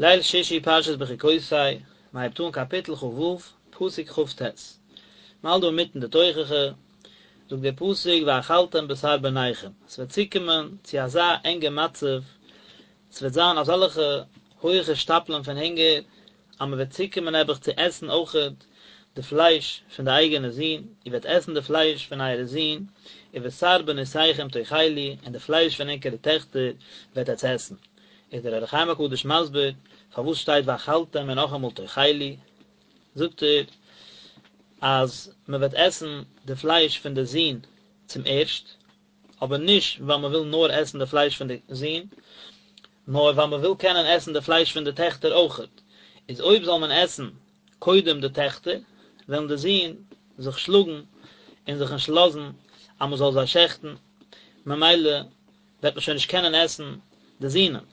ליל שישי פרשת בחוקותי, מען הייבט אן קאפיטל כ"ו, פסוק כ"ט. מען האלט דא אינמיטן די תוכחה, זאגט דער פסוק ואכלתם בשר בניכם, עס וועט צוקומען צו אזא ענגע מצב, עס וועט זיין אזעלכע הויכע שטאפלען פון הונגער, אז מען וועט צוקומען נעבעך צו עסן אויכעט די פלייש פון די אייגענע זין, איר וועט עסן די פלייש פון אייערע זין, ובשר בנותיכם תאכלו, און די פלייש פון ענקערע טעכטער וועט עטס עסן. איז דער אור החיים הקדוש מסביר פארוואס שטייט ואכלתם און נאכאמאל תאכלו, זאגט ער אז מען וועט עסן די פלייש פון די זין צום ערשט, אבער נישט ווייל מען וויל נאר עסן די פלייש פון די זין, נאר ווייל מען וויל קענען עסן די פלייש פון די טעכטער אויכעט, איז אויב זאל מען עסן קודם די טעכטער, וועלן די זין זיך שלאגן און זיך נישט לאזן אז מען זאל זיי שעכטן, ממילא וועט מען שוין נישט קענען עסן די זינען.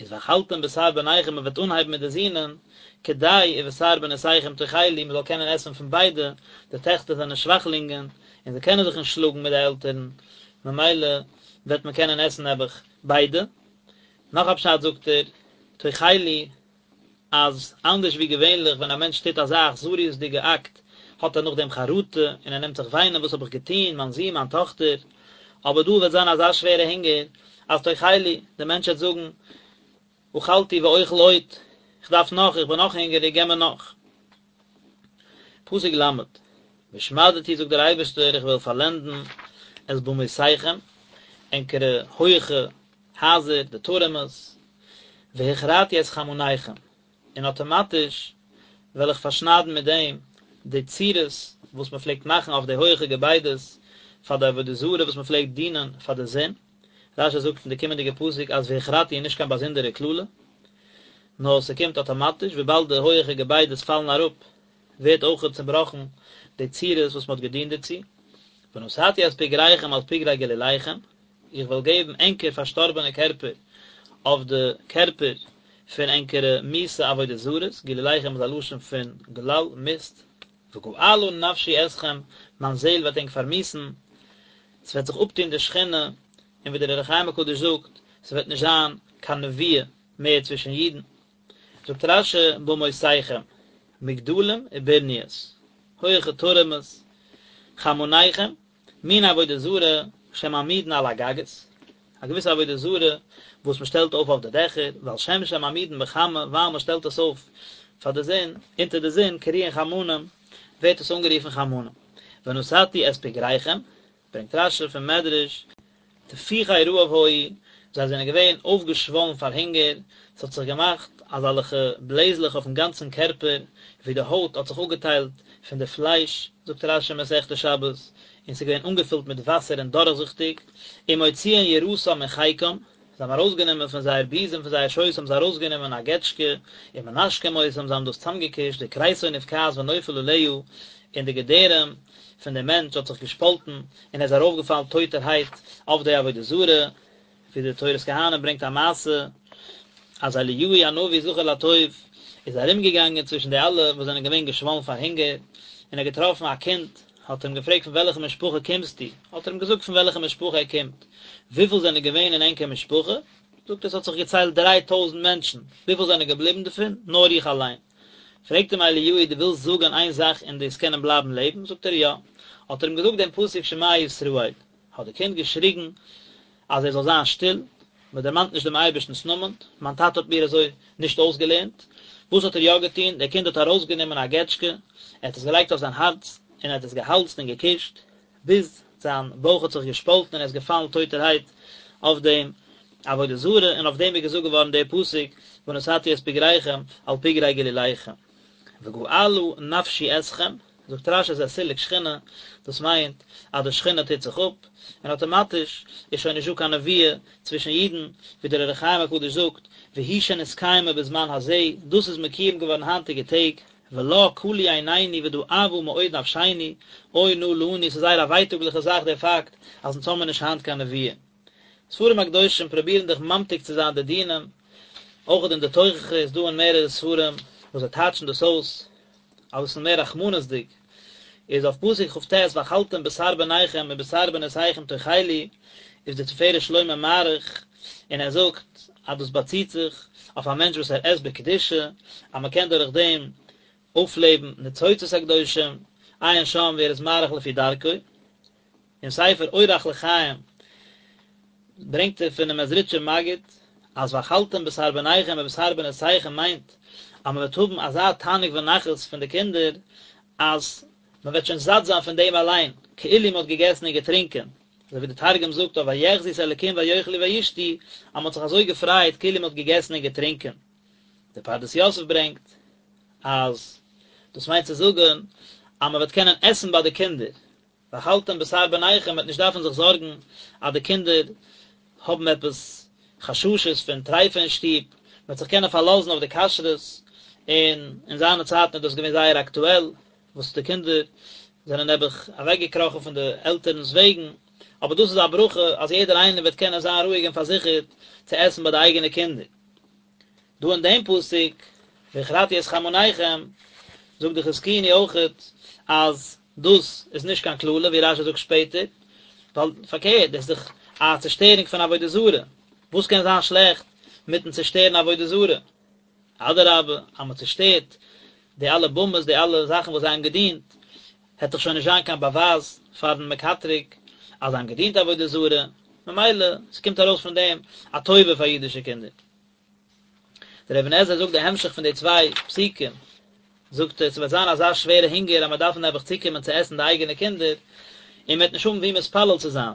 איז ואכלתם בשר בניכם מען וועט אנהייבן מיט די זינען, כדי ובשר בנותיכם תאכלו מען זאל קענען עסן פון ביידע, די טעכטער זענען שוואכלינגען און זיי קענען זיך נישט שלאגן מיט די עלטערן, ממילא וועט מען קענען עסן נעבעך ביידע. נאך א פשט זאגט ער, תאכלו אז אנדערש ווי געווענליך ווען א מענטש טוט אזא אכזריות'דיגע אקט האט ער נאכדעם חרטה און ער נעמט זיך וויינען וואס האב איך געטון, מיין זון, מיין טאכטער, אבער דא וועט זיין אזא שווערע הונגער אז תאכלו, דער מענטש וועט זאגן אכלתי ואוכל עוד, איך דארף נאך, איך בין נאך הונגעריג, געב מיר נאך. פסוק ל', והשמדתי זאגט דער אייבערשטער איך וועל פארלענדן את במותיכם, ענקערע הויעכע הייזער, די טורעמעס, והכרתי את חמניכם, און אטאמאטיש וועל איך פארשניידן מיט דעם די צורות וואס מען פלעגט מאכן אויף די הויעכע געביידעס פאר די עבודה זרה וואס מען פלעגט דינען פאר די זון. רש"י זאגט אין די קומענדיגע פסוק אז והכרתי איז נישט קיין באזונדערע קללה, נאר ס'קומט אטאמאטיש, וויבאלד די הויעכע געביידעס פאלן אראפ ווערט אויכעט צובראכן די צורות וואס מען האט געדינט דערצו. ונתתי את פגריכם על פגרי גלוליכם, איך וועל געבן ענקער פארשטארבענע קערפער אויף די קערפער פון ענקערע מיאוסע עבודה זרות, גלוליכם איז א לשון פון גלל, מיסט, וגעלה נפשי אתכם, מיין זעהל וועט ענק פארמיאוסן, ס'וועט זיך אפטון די שכינה, און ווי דער אור החיים הקדוש זאגט, ס'וועט נישט זיין קיין נבואה מער צווישן אידן. זאגט רש"י במותיכם, מגדלים וברניות, הויעכע טורעמעס, חמניכם, מין עבודה זרה שמעמידין על הגגות, א געוויסע עבודה זרה וואס מען שטעלט אויף אויף די דעכער, ועל שם שמעמידין בחמה, ווייל מען שטעלט עס אויף פאר די זון, אונטער די זון, קרויין חמנים, ווערט עס אנגערופן חמנים. ונתתי את פגריכם, ברענגט רש"י פון מדרש, תפוחי רעב היו, זיי זענען געווען אויפגעשוואלן פאר הונגער, עס האט זיך געמאכט אזעלכע בלעזלעך אויפן גאנצן קערפער, ווי די הויט האט זיך אפגעטיילט פון די פלייש, זאגט רש"י מסכת שבת, און ס'איז געווען אנגעפילט מיט וואסער און דורכזיכטיג, ומוציאין יראתם מחיקם, זיי האבן ארויסגענומען פון זייער בוזעם, פון זייער שויס האבן זיי ארויסגענומען א געטשקע, ומנשקים אותם, זיי האבן דאס צאמגעקושט, וכריסו נבקעת ונופל עליה, און די געדערים פון דעם מענטש האט זיך געשפאלטן, און ער איז ארויפגעפאלן טויטערהייט אויף די עבודה זרה, ווי די תורת כהנים ברענגט א מעשה, אז אליהו הנביא זכור לטוב איז ארומגעגאנגען צווישן די אלע וואס זענען געווען געשוואלן פאר הונגער, און ער האט געטראפן א קינד, האט ער אים געפרעגט פון וועלכע משפחה קומסטו? האט ער אים געזאגט פון וועלכע משפחה ער קומט, וויפיל זענען געווען אין ענקער משפחה? זאגט ער עס האט זיך געציילט דריי טויזנט מענטשן, וויפיל זענען געבליבן דערפון? נאר איך אליין. פרעגט אים אליהו דו ווילסט זאגן איין זאך און דו'סט קענען בלייבן לעבן? זאגט ער יא. האט ער אים געזאגט דעם פסוק שמע ישראל, האט די קינד געשריגן אז ער זאל זיין שטיל, מען דערמאנט נישט דעם אייבערשטנ'ס נאמען, מיין טאטע האט מיר אזוי נישט אויסגעלערנט. וואס האט ער יא געטון? דער קינד האט ארויסגענומען א געטשקע, ער האט עס געלייגט אויף זיין הארץ, און ער האט עס געהאלזט און געקושט, ביז זיין בויך האט זיך געשפאלטן און ער איז געפאלן טויטערהייט אויף דעם עבודה זרה, און אויף דעם איז געזאגט געווארן דער פסוק, ונתתי את פגריכם על פגרי גלוליכם. וגעלה נפשי אתכם, זאגט רש"י זה סילוק שכינה, דאס מיינט אז די שכינה טוט זיך אפ, און אטאמאטיש איז שוין נישטא קיין נבואה צווישן אידן, ווי דער אור החיים הקדוש זאגט, והיא שנתקיימה בזמן הזה, דאס איז מקויים געווארן היינטיגע טעג, ולה כלו עינינו ודאבה מאוד נפשינו, אוי נא לנו, ס'איז זייער א ווייטאגליכע זאך דער פאקט אז אונז האמיר נישט היינט קיין נבואה. ספרים הקדושים פרובירן דאך ממתיק צו זיין די דינים, אויך אין די תוכחה איז דא אין מערערע ספרים וואס זיי טייטשן דאס אויס אביסל מער רחמנות'דיג, איז אויף פסוק כ"ט ואכלתם בשר בניכם ובשר בנותיכם תאכלו, איז דער תפארת שלמה מאריך און ער זאגט אז דאס באציט זיך אויף א מענטש וואס ער עסט בקדושה, אז מען קען דורך דעם אויפלעבן ניצוצות הקדושים, עיין שם ווי ער איז מאריך לפי דרכו. אין ספר אורח לחיים ברענגט ער פונעם מעזריטשער מגיד אז ואכלתם בשר בניכם ובשר בנותיכם מיינט אז מען וועט האבן אזא תענוג ונחת פון די קינדער אז מען וועט שוין זאט זיין פון דעם אליין, כאילו מען האט געגעסן און געטרינקען, אזוי ווי די תרגום זאגט אויף ויחזו את האלקים ויאכלו וישתו אז מען האט זיך אזוי געפרייט כאילו מען האט געגעסן און געטרינקען. דער פרדס יוסף ברענגט אז דאס מיינט צו זאגן אז מען וועט קענען עסן ביי די קינדער, ואכלתם בשר בניכם, מ'וועט נישט דארפן זיך זארגן אז די קינדער האבן עפעס חששות פון טריפה אין שטוב, מ'וועט זיך קענען פארלאזן אויף די כשרות, און אין זיינע צייטן איז דאס געווען זייער אקטועל, וואס די קינדער זענען נעבעך אוועקגעקראכן פון די עלטערנס וועגן, אבער דאס איז א ברכה אז יעדער איינער וועט קענען זיין רואיג און פארזיכערט צו עסן ביי די אייגענע קינדער. דא אין דעם פסוק, והכרתי את חמניכם, זאגט די חזקוני אויכעט אז דאס איז נישט קיין קללה ווי רשי זאגט שפעטער, ווייל פארקערט, דאס איז דאך א צעשטערונג פון עבודה זרה, וואס קען זיין שלעכט מיטן צעשטערן עבודה זרה? אדרבה, אז מען צעשטערט די אלע במות, די אלע זאכן וואס זיי האבן געדינט, העט דאך שוין נישט זיין קיין באווייז פארן מקטרג אז זיי האבן געדינט עבודה זרה, ממילא ס'קומט ארויס פון דעם א טובה פאר אידישע קינדער. דער אבן עזרא זאגט די המשך פון די צוויי פסוקים, זאגט ער, ס'וועט זיין אזא שווערע הונגער אז מ'וועט דארפן נעבעך צוקומען צו עסן די אייגענע קינדער, און מ'וועט נישט האבן וואו מתפלל צו זיין,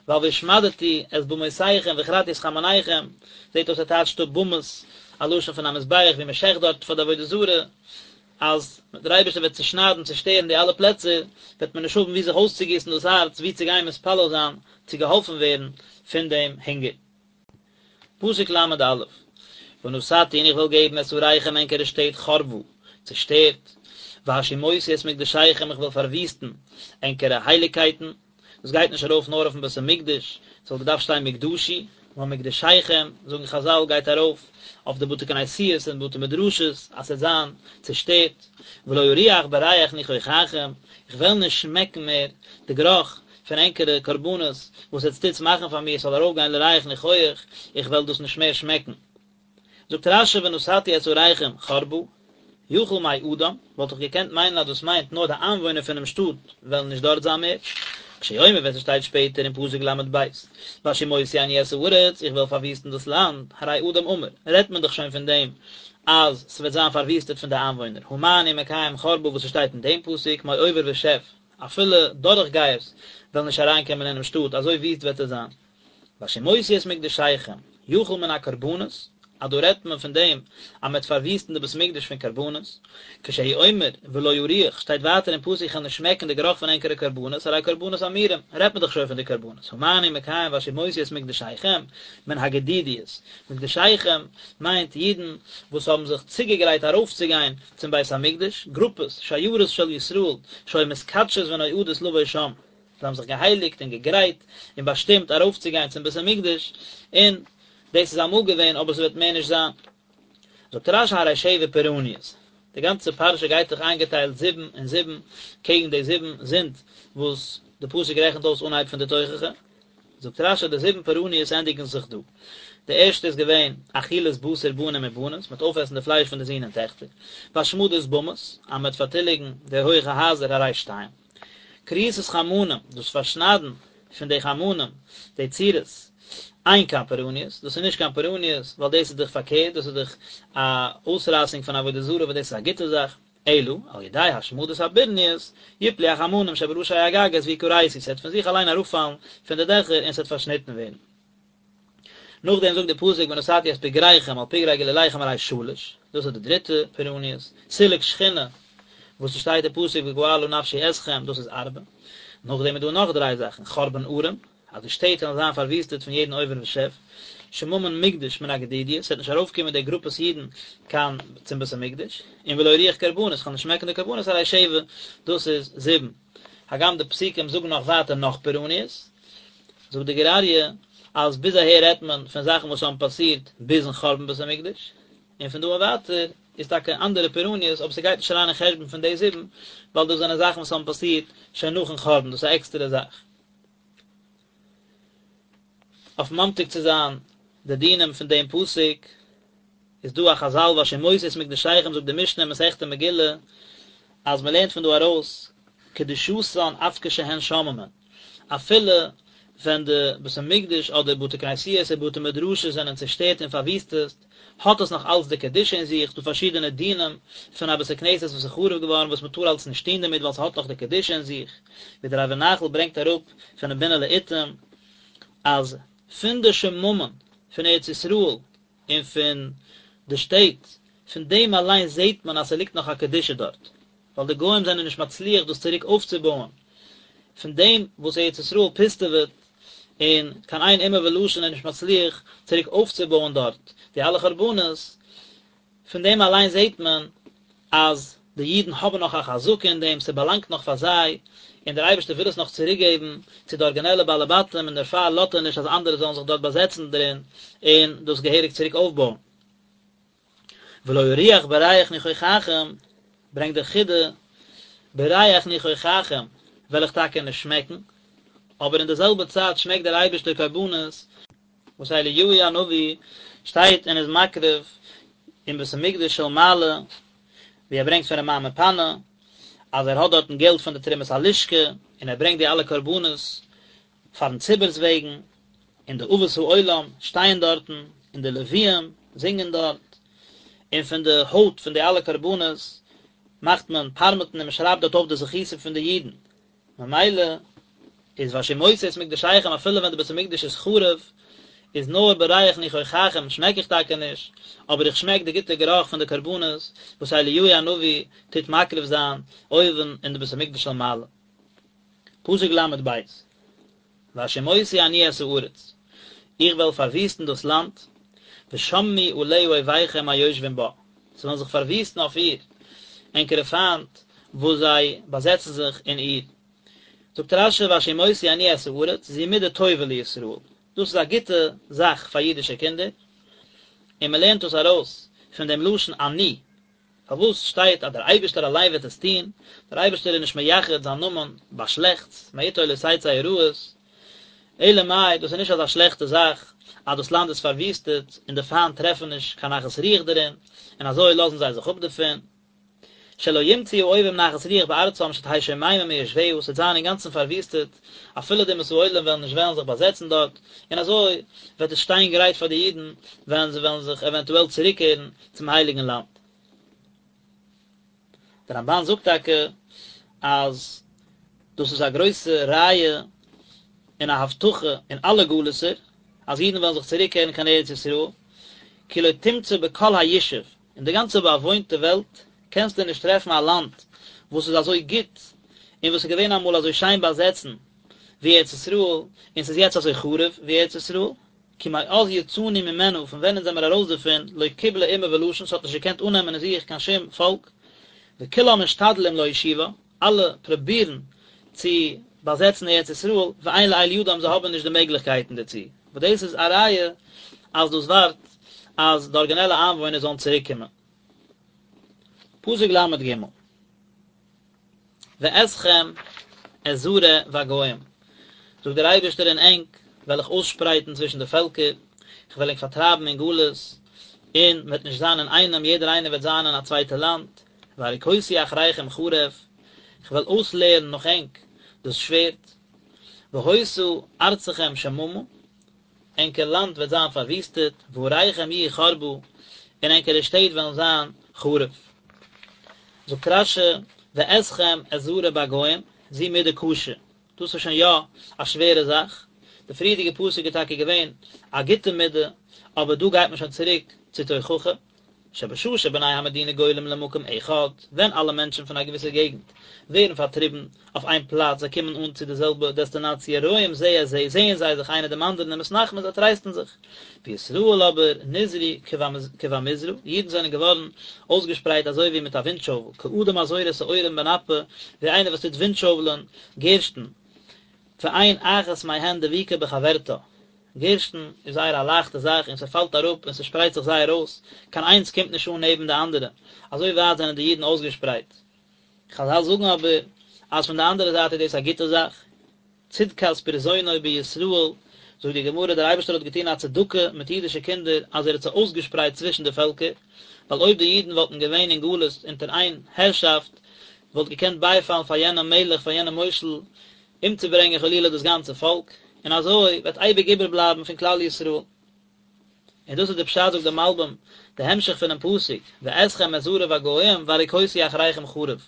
ווייל והשמדתי את במותיכם והכרתי את חמניכם, זעט אויס ער טייטשט אפ במות, א לשון פון א מזבח ווי מ'שעכט דארט פאר די עבודה זרה, אז דער אייבערשטער וועט צושניידן צושטערן די אלע פלעצער, וועט מען נישט האבן וואו זיך אויסצוגיסן דאס הארץ, וואו צו גיין מתפלל זיין, צו געהאלפן ווערן פון דעם הונגער. פסוק ל' א', ונתתי און איך וועל געבן את עריכם ענקערע שטעט חרבה, צעשטערט, והשמותי את מקדשיכם איך וועל פארוויסטן ענקערע הייליגקייטן, דאס גייט נישט ארויף נאר אויפן בית המקדש, ס'וואלט געדארפט שטיין מקדשי, נאר מקדשיכם, זאגן חזל, גייט ארויף אויף די בתי כנסיות און בתי מדרשות, אז ס'וועט זיין צעשטערט, ולא אריח בריח ניחוחכם, איך וועל נישט שמעקן מער די גערוך פון ענקערע קרבנות וואס עטס טוטס מאכן פאר מיר, ס'זאל ארויפגיין לריח ניחוח, איך וועל דאס נישט מער שמעקן. זאגט רשי ונתתי את עריכם חרבה, יכול מאדם, וואלט איך געקענט מיינען אז דאס מיינט נאר די איינוואוינער פונעם שטאט וועלן נישט דארט זיין מער, כשהוא אומר ווען ס'שטייט שפעטער אין פסוק ל"ב, והשמותי אני את הארץ, איך וועל פארוויסטן דאס לאנד, הרי אדם אמור, רעדט מען דאך שוין פון דעם אז ס'וועט זיין פארוויסטעט פון די איינוואוינער, הא מה אני מקיים חרבה וואס ס'שטייט אין דעם פסוק, מעובר ושב, אפילו דורכגייערס וועלן נישט אריינקומען אינעם שטאט, אזוי וויסט וועט עס זיין. והשמותי את מקדשיכם, יכול מן הקרבנות, אז דא רעדט מען פון דעם אז מען וועט פארוויסטן די בית מקדש פון קרבנות, כשהוא אומר ולא אריח, שטייט ווייטער אין פסוק איך וועל נישט שמעקן די גערוך פון ענקערע קרבנות, הרי קרבנות אמורים, רעדט מען דאך שוין פון די קרבנות, הא מה אני מקיים והשמותי את מקדשיכם, מן הגדידיות, מקדשיכם מיינט אידן וואס האבן זיך צוגעגרייט ארויפצוגיין צום בית המקדש, גרופעס, שיירות של ישראל, שהיו מתקדשות ונועדות לבוא שם. זיי האבן זיך געהייליגט און געגרייט און באשטימט ארויפצוגיין צום בית המקדש, און דאס איז אמאל געווען אבער ס'וועט מער נישט זיין. זאגט רשי הרי שבע פורעניות, די גאנצע פרשה גייט דאך איינגעטיילט זיבן און זיבן קעגן די זיבן זינד וואס די פסוק רעכנט אויס אנהייב פון די תוכחה, זאגט רשי די זיבן פורעניות ענדיגן זיך דא, די ערשטע איז געווען אכילת בשר בנים ובנות, מ'וועט אויפעסן די פלייש פון די זין און טעכטער, והשמדת במות, אז מ'וועט פארטיליגן די הויכע הייזער הרי שתיים. כריתת חמנים, דאס פארשניידן פון די חמנים, די צורות, אין כאן פורעניות, דאס איז נישט קיין פורעניות, ווייל דאס איז דאך פארקערט, דאס איז דאך א אויסרייסונג פון עבודה זרה וואס דאס איז א גוטע זאך, אלא, על ידי השמדת הברניות, יפלו החמנים שבראשי הגגות ויכרתו, ס'וועט פון זיך אליין אראפפאלן פון די דעכער און ס'וועט פארשניטן ווערן. נאכדעם זאגט די פסוק ונתתי את פגריכם על פגרי גלוליכם הרי שלש, דאס איז די דריטע פורעניות, סילוק שכינה, וואס עס שטייט אין פסוק וגעלה נפשי אתכם, דאס איז ארבע, נאכדעם איז דא נאך דריי זאכן, חרבן ערים, אז די שטעט וועלן זיין פארוויסטעט פון יעדן עובר ושב, שממון מקדש מן הגדידיות, ס'וועט נישט ארויפקומען די גרופעס אידן קיין צום בית המקדש, און ולא אריח קרבנות, כ'וועל נישט שמעקן די קרבנות הרי שבע, דאס איז זיבן. הגם די פסוקים זאגן נאך ווייטער נאך פורעניות, זאגט די גור אריה אז ביז אהער רעדט מען פון זאכן וואס האבן פאסירט ביזן חורבן בית המקדש, און פון דא און ווייטער איז טאקע אנדערע פורעניות אבער ס'גייט נישט אריין אין חשבון פון די זיבן, ווייל דאס זענען זאכן וואס האבן פאסירט שוין נאכן חורבן, דאס איז א עקסטערע זאך. אויף ממתיק צו זיין די דינים פון דעם פסוק. איז דא א חזל והשמותי את מקדשיכם זאגט די משנה אין מסכת מגילה אז מען לערנט פון דא ארויס קדושתן אף כשהן שוממין, אפילו ווען די בית המקדש אדער בתי כנסיות און בתי מדרשות זענען צושטערט און פארוויסטעט, האט עס נאך אלץ די קדושה אין זיך, ס'דא פארשידענע דינים פון א בית הכנסת וואס איז חרוב געווארן וואס מען טאר אלץ נישט טון דערמיט ווייל ס'האט נאך די קדושה אין זיך, ווי דער ערבי נחל ברענגט אראפ פונעם בינה לעתים אז פון די שממון פון ארץ ישראל און פון די שטעט, פון דעם אליין זעט מען אז ס'ליגט נאך א קדושה דארט, ווייל די גוים זענען נישט מצליח דאס צוריק אויפצובויען, פון דעם וואס ארץ ישראל פוסטעוועט און קיין איין אומה ולשון איז נישט מצליח צוריק אויפצובויען דארט די אלע חורבנות, פון דעם אליין זעט מען אז די אידן האבן נאך א חזקה אין דעם, ס'באלאנגט נאך פאר זיי, און דער אייבערשטער וויל עס נאך צוריקגעבן צו די ארגינעלע בעלי בתים און דערפאר לאזט ער נישט אז אנדערע זאלן זיך דארט באזעצן דערין און דאס געהעריג צוריק אויפבויען. ולא אריח בריח ניחוחכם, ברענגט דער חידא, בריח ניחוחכם וועל איך טאקע נישט שמעקן, אבער אין די זעלבע צייט שמעקט דער אייבערשטער קרבנות, וואס אליהו הנביא שטייט און איז מקריב אין בית המקדש של מעלה, ווי ער ברענגט פון רמ"ע מפאנו, אז ער האט דארטן געלט פון די תרומת הלשכה, און ער ברענגט די אלע קרבנות פארן ציבור'ס וועגן, און די אבות העולם שטייען דארטן, און די לוויים זינגען דארט, און פון די הויט פון די אלע קרבנות מאכט מען פארמעטן און מען שרייבט דארט אויף די זכותים פון די אידן, ממילא איז והשמותי את מקדשיכם אפילו ווען די בית המקדש איז חרוב, איז נאר בריח ניחוחכם שמעק איך טאקע נישט, אבער איך שמעק די גוטע גערוך פון די קרבנות וואס אליהו הנביא טוט מקריב זיין אויבן אין די בית המקדש של מעלה. פסוק ל"ב, והשמותי אני את הארץ, איך וועל פארוויסטן דאס לאנד, ושממו עליה אויביכם היושבים בה, ס'וועלן זיך פארוויסטן אויף איר ענקערע פיינט וואס זיי באזעצן זיך אין איר. זאגט רש"י והשמותי אני את הארץ, זו מידה טובה לישראל, דאס איז א גוטע זאך פאר אידישע קינדער, און מען לערנט דאס ארויס פון דעם לשון אני, פארוואס שטייט אז דער אייבערשטער אליין וועט עס טון? דער אייבערשטער איז נישט מייחד זיין נאמען ביי שלעכטס, מאתו לא תצא הרעות, אלא מאי, דאס איז נישט אזא שלעכטע זאך אז דאס לאנד איז פארוויסטעט און די פיינט טרעפן נישט קיין נחת רוח דערין, און אזוי לאזן זיי זיך אפ דערפון. שלא ימצאו האויבים נחת רוח בארצם שתהא שוממה מיושביה, ס'וועט זיין אינגאנצן פארוויסטעט, אפילו די אומות העולם וועלן נישט וועלן זיך באזעצן דארט, און אזוי וועט עס שטיין גרייט פאר די אידן ווען זיי וועלן זיך עווענטועל צוריקקערן צום הייליגן לאנד. דער רמב"ן זאגט טאקע אז דאס איז א גרויסע ראיה און א הבטחה אין אלע גלות'ער אז אידן וועלן זיך צוריקקערן קיין ארץ ישראל, כי לא תמצא בכל הישוב, אין די גאנצע באוואוינטע וועלט קענסטו נישט טרעפן א לאנד וואס איז אזוי גוט און וואס איז געווען אמאל אזוי שיין באזעצן ווי ארץ ישראל און ס'איז יעצט אזוי חרוב ווי ארץ ישראל, כי מאז יצאנו ממנה, פון ווען אונז זעמיר ארויס דערפון, לא קיבלה אומה ולשון, ס'האט נישט געקענט אננעמען אין זיך קיין שום פאלק, וכולם משתדלים להושיבה, אלע פרובירן צו באזעצן ארץ ישראל, ואין לאל ידם, זיי האבן נישט די מעגליכקייטן דערצו, וואס דאס איז א ראיה אז דאס ווארט אז די ארגינעלע איינוואוינער זאלן צוריק קומען. פסוק ל"ג. ואתכם אזרה בגוים, זאגט דער אייבערשטער און ענק וועל איך אויסשפרייטן צווישן די פעלקער, איך וועל ענק פארטרייבן אין גלות, און מען וועט נישט זיין אין איינעם, יעדער איינער וועט זיין אין א צווייטע לאנד, והריקותי אחריכם חרב, איך וועל אויסלערן נאך ענק דאס שווערד, והיתה ארצכם שממה, ענקער לאנד וועט זיין פארוויסטעט, ועריכם יהיו חרבה, און ענקערע שטעט וועלן זיין חרוב. זאגט רש"י, ואתכם אזרה בגוים, זו מידה קשה, דאס איז שוין יא א שווערע זאך, די פריערדיגע פסוק איז טאקע געווען א גוטע מידה, אבער דא גייט מען שוין צוריק צו תוכחה. שבשעה שבני המדינה גולים למקום אחד, ווען אלע מענטשן פון א געוויסע געגנט ווערן פארטריבן אויף איין פלאץ, זיי קומען אן צו די זעלבע דעסטינאציע, רואים זה את זה, זעען זיי זיך איינער דעם אנדערן ומתנחמים, זיי טרייסטן זיך. וישראל אבער נזרו כבמזרע, אידן זענען געווארן אויסגעשפרייט אזוי ווי מיט א ווינטשובל, כאדם הזורה שעורים בנפה, ווי איינער וואס טוט ווינטשובלען גערשטן, ואין אחת מהן דבוקה בחברתה, גערשטן איז זייער א לייכטע זאך און ס'פאלט אראפ און ס'שפרייט זיך זייער אויס, קיין איינס קומט נישט אן נעבן די אנדערע, אזוי ווייט זענען די אידן אויסגעשפרייט. חזל זאגן אבער אז פון די אנדערע זייט איז דאס א גוטע זאך, צדקת פרזונו בישראל, זאגט די גמרא, דער אייבערשטער האט געטון א צדקה מיט אידישע קינדער אז ער האט זיי אויסגעשפרייט צווישן די פעלקער, ווייל אויב די אידן וואלטן געווען אין גלות אונטער איין הערשאפט, וואלט געקענט בייפאלן פאר יענעם מלך, פאר יענעם מושל, אומצוברענגען חלילה דאס גאנצע פאלק, און אזוי וועט אייביג איבערבלייבן פון כלל ישראל. און דאס איז די פשט זאגט דער מלבים, די המשך פונעם פסוק, ואתכם אזרה בגוים והריקותי אחריכם חרב,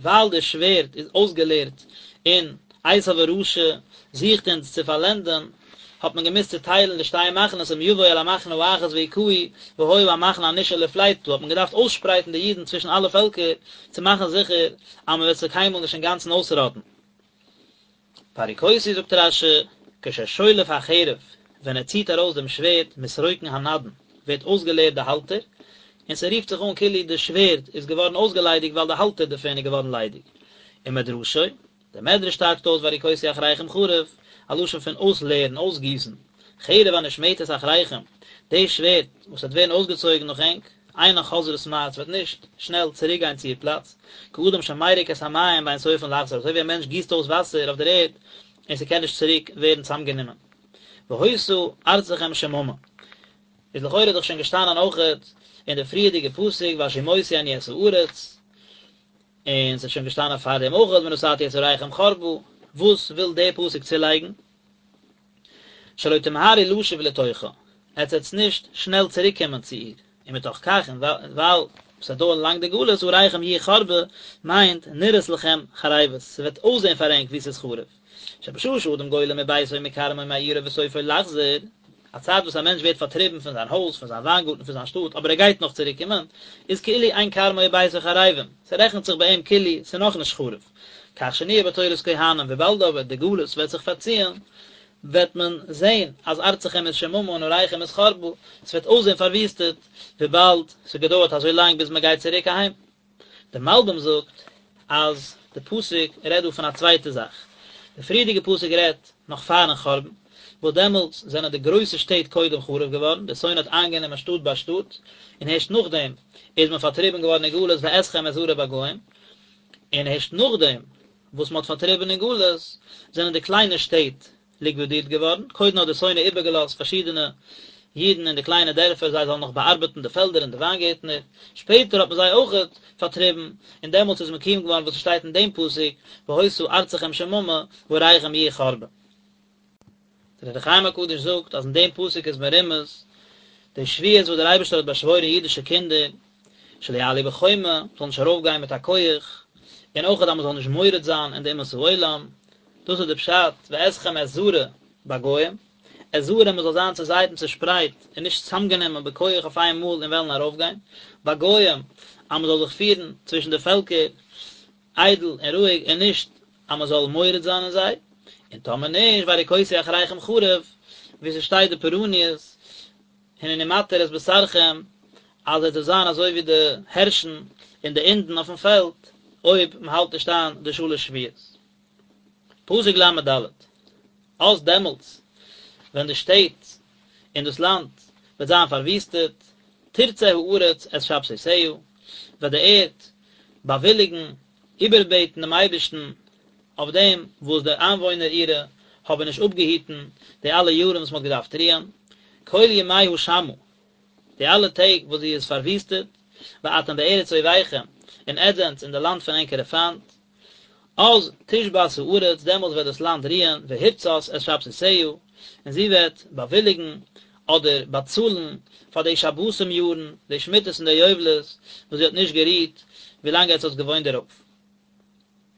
ווייל די שווערד איז אויסגעלערט און עשו הרשע זוכט אונז צו פארלענדען, האט מען געמוזט צוטיילן די שתי מחנות אם יבוא אל המחנה האחת והכהו והיה המחנה הנשאר לפליטה, האט מען געדארפט אויסשפרייטן די אידן צווישן אלע פעלקער צו מאכן זיכער אז מען וועט זיי קיינמאל נישט אינגאנצן אויסראטן. והריקותי זאגט רש"י, כששולף החרב, ווען ער ציט ארויס דעם שווערד, מתרוקן הנדן, ווערט אויסגעלערט די האלטער, און ס'רופט זיך אן כאילו די שווערד איז געווארן אויסגעליידיגט ווייל די האלטער דערפון איז געווארן ליידיג. ומדרשו, דער מדרש טייטשט אויס והריקותי אחריכם חרב, א לשון פון אויסלערן, אויסגיסן, חרב הנשמטת אחריכם, די שווערד וואס וועט ווערן אויסגעצויגן נאך ענק, אינה חוזרת מהר, ס'וועט נישט שנעל צוריק גיין צו איר פלאץ, כאדם שמריק את המים ואין סופן לחזור, אזוי ווי א מענטש גיסט אויס וואסער אויף דער ערד און ס'קען נישט צוריק ווערן צוזאמגענומען. והיתה ארצכם שממה. איז לכאורה דאך שוין געשטאנען אויכעט אין די פריערדיגע פסוק והשמותי אני את הארץ, און ס'איז שוין געשטאנען פארדעם אויכעט ונתתי את עריכם חרבה, וואס וויל דער פסוק צולייגן? שלא תמהרו לשוב לתוכה, עטס וועטס נישט שנעל צוריק קומען צו איר, ומתוך כך און ווייל ס'וועט דויערן לאנג די גלות עריכם יהיו חרבה, מיינט נראות לכם חרבות, ס'וועט אויסזען פאר ענק ווי ס'איז חרוב. שבשעה שאדם גולה מביתו ומכרמו ומעירו וסופו לחזור, א צייט וואס א מענטש ווערט פארטריבן פון זיין הויז, פון זיין וויינגארטן, פון זיין שטאט, אבער ער גייט נאך צוריק קומען, איז כאילו אין כרמו וביתו חרבים, ס'רעכנט זיך ביי אים כאילו ס'איז נאכנישט חרוב. כך שנויה בתורת כהנים, וויבאלד אבער די גלות וועט זיך פארציען, וועט מען זען אז ארצכם איז שממה און עריכם איז חרבה, ס'וועט אויסזען פארוויסטעט, וויבאלד ס'האט געדויערט אזוי לאנג ביז מ'גייט צוריק אהיים. דער מלבים זאגט אז די פסוק רעדט דא פון א צווייטע זאך, די פריערדיגע פסוק רעדט נאך פארן חורבן, וואס דעמאלטס זענען די גרויסע שטעט קודם חרוב געווארן, דער שונא האט איינגענומען שטאט ביי שטאט, און הערשט נאכדעם איז מען פארטריבן געווארן אין גלות ואתכם אזרה בגוים, און הערשט נאכדעם וואס מען האט פארטריבן אין גלות, זענען די קליינע שטעט ליקווידירט געווארן, קודם האט דער שונא איבערגעלאזט פארשידענע אידן אין די קליינע דערפער זיי זאלן נאך באארבעטן די פעלדער און די וויינגערטנער, שפעטער האט מען זיי אויכעט פארטריבן, און דעמאלטס איז מקוים געווארן וואס עס שטייט אין דעם פסוק, והיתה ארצכם שממה ועריכם יהיו חרבה. דער אור החיים הקדוש זאגט אז אין דעם פסוק איז מרומז די שבועות וואס דער אייבערשטער האט באשוואוירן אידישע קינדער, שלא יעלו בחומה, מ'זאל נישט ארויפגיין מיט א כח, און אויך אז מ'זאל נישט מורד זיין אין די אומות העולם, דאס איז די פשט ואתכם אזרה בגוים, אזרה מ'זאל זיין צוזייט און צושפרייט און נישט צוזאמגענומען בכח אויף איין מאל און וועלן ארויפגיין, בגוים, אז מ'זאל זיך פירן צווישן די פעלקער איידל און רואיג און נישט אז מ'זאל מורד זיין אין זיי, און טאמער נישט והריקותי אחריכם חרב, ווי ס'שטייט די פורעניות, הנני מתיר את בשרכם, אז עס וועט זיין אזוי ווי די הערשן און די אינדן אויפן פעלד, אויב מען האלט נישט איין די שלש שבועות. פסוק ל"ד, אז דעמאלטס ווען די שטעט און דאס לאנד וועט זיין פארוויסטעט, תרצה הארץ את שבתותיה, וועט די ערד באוויליגן, איבערבעטן דעם אייבערשטן אויף דעם וואס די איינוואוינער אירע האבן נישט אפגעהיטן די אלע יארן וואס מען האט געדארפט רוען, כל ימי השמה, די אלע טעג וואס זי איז פארוויסטעט, ואתם בארץ אויביכם, און עטס זענטס אין די לאנד פון ענקערע פיינט, אז תשבת הארץ, דעמאלטס וועט דאס לאנד רוען, והרצת את שבתותיה, און זי וועט באוויליגן, אדער באצאלן, פאר די שבתים יארן, די שמיטות און די יובלות, וואס זי האט נישט גערוהט, ווילאנג עטס האטס געוואוינט דערויף.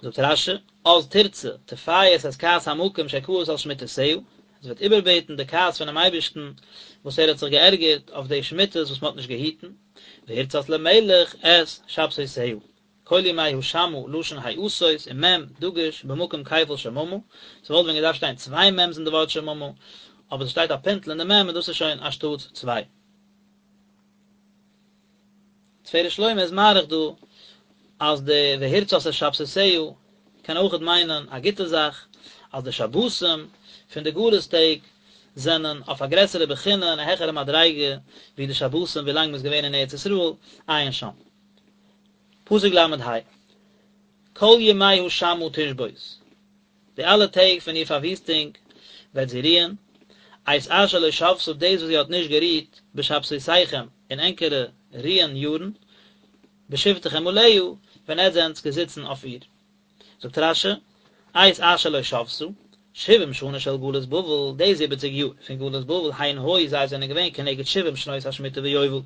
זאגט רש"י, אז תרצה, תפייס את כעס המקום שכעס על שמיטותיה, עס וועט איבערבעטן די כעס פונעם אייבערשטן וואס ער האט זיך געערגערט אויף די שמיטות וואס מען האט נישט געהיטן, והרצת למלך את שבתותיה. כל ימי השמה לשון העשות ומ' דגוש במקום כפל שממה, ס'וואלט ווען געדארפט שטיין צוויי מ'ס אין די ווארט שממה, אבער ס'שטייט א פינטל אין די מ' און דאס איז שוין אנשטאט צוויי. תפארת שלמה איז מאריך דא אז די והרצת את שבתותיה קען אויכעט מיינען א גוטע זאך, אז די שבתים פון די גלות טעג זענען אויף א גרעסערע בחינה און א העכערע מדריגה ווי די שבתים ווילאנג מ'איז געווען אין ארץ ישראל, עיין שם. פסוק ל"ה, כל ימי השמה תשבות, די אלע טעג פון איר פארוויסטונג וועט זי רוען, את אשר לא שבתה דאס וואס זי האט נישט גערוהט בשבתותיכם אין ענקערע רוען יארן, בשבתכם עליה, ווען עטס זענטס געזיצן אויף איר. זאגט רש"י, את אשר לא שבתה, שבעים שנה של גלות בבל, די זיבעציג יאר פון גלות בבל, הן היו זיי זענען געווען כנגד שבעים שנות השמיטה ויובל,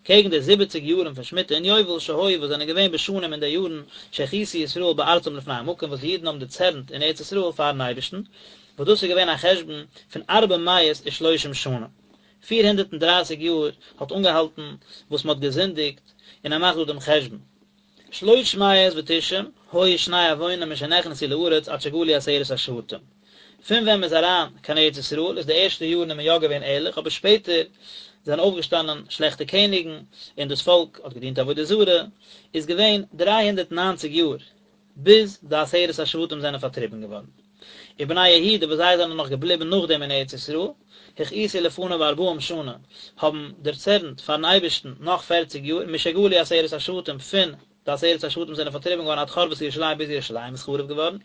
קעגן די זיבעציג יארן פון שמיטה און יובל שהיו וואס זענען געווען בשנים אין די יארן שהכעיסו ישראל בארצם לפני המקום וואס די אידן האבן דערצערנט אין ארץ ישראל פארן אייבערשטן, וואס דאס איז געווען א חשבון פון ארבע מאות ושלושים שנה, 430 יאר האט אנגעהאלטן וואס מען האט געזינדיגט, און ער מאכט דא דעם חשבון. שלוש מאות ותשעים היו שני עוונם משנכנסו לארץ עד שגלו עשרת השבטים. פון ווען מען איז אריין קיין ארץ ישראל איז די ערשטע יארן איז מען יא געווען ערליך אבער שפעטער זענען אויפגעשטאנען שלעכטע קעניגן און דאס פאלק האט געדינט עבודה זרה איז געווען 390 יאר ביז די עשרת השבטים זענען פארטריבן געווארן. ובני יהודה וואס זיי זענען נאך געבליבן נאכדעם אין ארץ ישראל, הכעיסו לפניו ארבעים שנה, האבן דערצערנט פארן אייבערשטן נאך פערציג יאר, משגלו עשרת השבטים, פון די עשרת השבטים זענען פארטריבן געווארן עד חרבת ירושלים ביז ירושלים איז חרוב געווארן,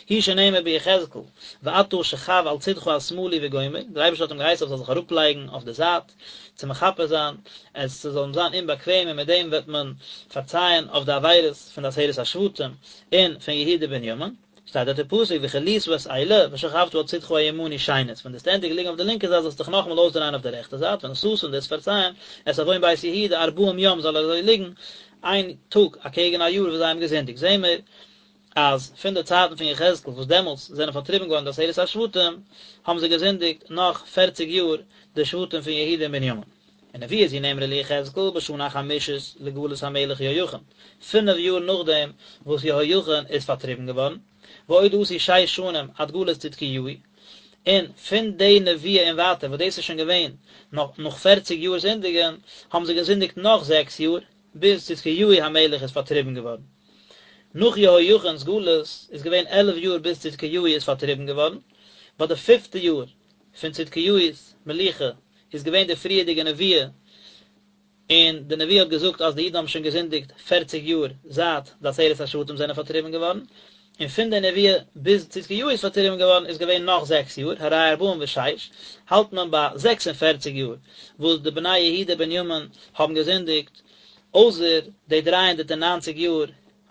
הוא שנאמר ביחזקאל, ואתה שכב על צדך השמאלי וגומר, דער אייבערשטער האט אים געהייסן ער זאל זיך אראפלייגן אויף די זייט, צו מכפר זיין, עס זאל אים זיין אומבאקוועם און מיט דעם וועט מען פארצייען אויף די עבירות פון די עשרת השבטים און פון יהודה ובנימין. שטייט דארט אין פסוק וכלית את אלה ושכבת על צדך הימני שנית, ווען דו וועסט ענדיגן ליגן אויף די לינקע זייט זאלסטו דיך נאכאמאל אויסדרייען אויף די רעכטע זייט, ונשאת און דו וועסט פארצייען את עון בית יהודה ארבעים יום זאל ער אזוי ליגן איין טאג אקעגן א יאר וואס זיי האבן געזינדיגט, זעהן מיר אז פון די צייטן פון יחזקאל וואס דעמאלטס זענען פארטריבן געווארן די עשרת השבטים, האבן זיי געזינדיגט נאך פערציג יאר די שבטים פון יהודה און בנימין. ונבואה זו נאמרה ליחזקאל בשנה החמישית לגלות המלך יהויכין, פינף יאר נאכדעם וואס יהויכין איז פארטריבן געווארן, ועוד עשו שש שנים עד גלות צדקיהו, און פון די נבואה און ווייטער וואס דאס איז שוין געווען נאך פערציג יאר זינדיגן, האבן זיי געזינדיגט נאך זעקס יאר, ביז צדקיהו המלך איז פארטריבן געווארן. נאך יהויכין'ס גלות איז געווען 11 יאר ביז צדקיהו איז פארטריבן געווארן, ביי די פיפטע יאר פון צדקיהו'ס מלוכה איז געווען די פריערדיגע נבואה, און די נבואה האט געזאגט אז די אידן האבן שוין געזינדיגט פערציג יאר זייט די עשרת השבטים זענען פארטריבן געווארן, און פון די נבואה ביז צדקיהו איז פארטריבן געווארן איז געווען נאך זעקס יאר, הרי ארבעים ושש, האלט מען ביי 46 יאר וואס די בני יהודה בנימין האבן געזינדיגט, אויסער די 390 יאר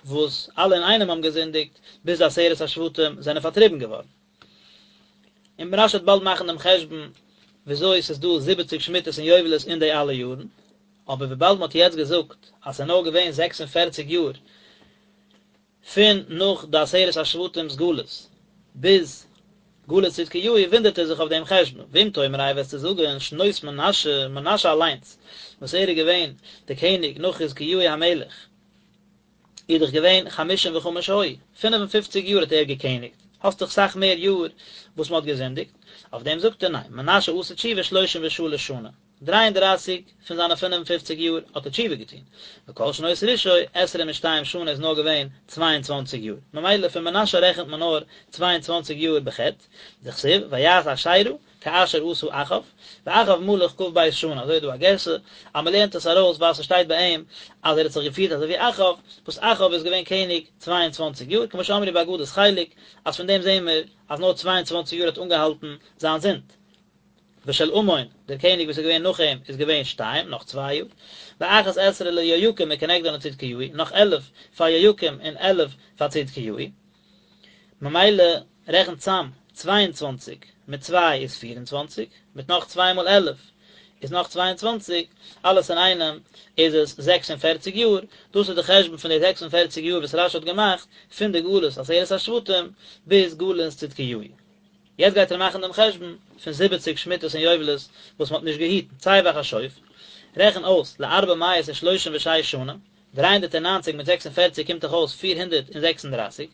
וואס אלע אינאיינעם האבן געזינדיגט ביז די עשרת השבטים זענען פארטריבן געווארן. און רש"י וועט באלד מאכן דעם חשבון וויאזוי ס'איז דא זיבעציג שמיטות און יובלות אין די אלע יארן, אבער וויבאלד מ'האט יעצט געזאגט אז ס'איז נאר געווען 46 יאר פון נאך די עשרת השבטים'ס גלות ביז גלות צדקיהו וואונדערט ער זיך אויף דעם חשבון, ואם תאמר איי וועסטו זאגן שנות מנשה, מנשה אליינס וואס ער איז געווען די קעניג נאך חזקיהו המלך איז דאך געווען חמשים וחמש היו, 55 יאר האט ער געקעניגט, האסט דאך סאך מער יאר וואס מען האט געזינדיגט, אויף דעם זאגט ער ניין, מנשה עשה תשובה שלושים ושלש שנה. 33 פון זיינע 55 יאר האט ער תשובה געטון, וכל שנות רשעו עשרים ושתיים שנה איז נאר געווען 22 יאר, ממילא פון מנשה רעכנט מען נאר 22 יאר בחטא, דכתיב ויעש אשרה כאשר עשה אחאב, ואחאב מלך כ"ב שנה, אזוי איז דא א גירסא אז מען לערנט עס ארויס ווייל ס'שטייט ביי אים אז ער האט זיך געפירט אזוי ווי אחאב, וואס אחאב איז געווען קעניג 22 יאר, כמו שאמרו באגדת חלק, אז פון דעם זעהן מיר אז נאר 22 יאר האט אנגעהאלטן זיין זינד. ושל אמון, דער קעניג וואס איז געווען נאך אים, איז געווען שתיים, נאך צוויי יאר. ואחת עשרה ליהויקים וכנגדן לצדקיהו, נאך 11 פאר יהויקים און 11 פאר צדקיהו. ממילא רעכנט צאם, 22 מיט צוויי איז 24, מיט נאך צוויי מאל 11 איז נאך 22, אלעס אינאיינעם איז עס 46 יאר, דאס איז די חשבון פון די 46 יאר וואס רש"י האט געמאכט, פון די גלות עשרת השבטים ביז גלות צדקיהו. יעצט גייט ער מאכן דעם חשבון פון זיבעציג שמיטות און יובלות וואס מען האט נישט געהיטן, צא וחשוב, רעכן אויס לארבע מאות ושלושים ושש שנה, 390 מיט 46 קומט דאך אויס 436,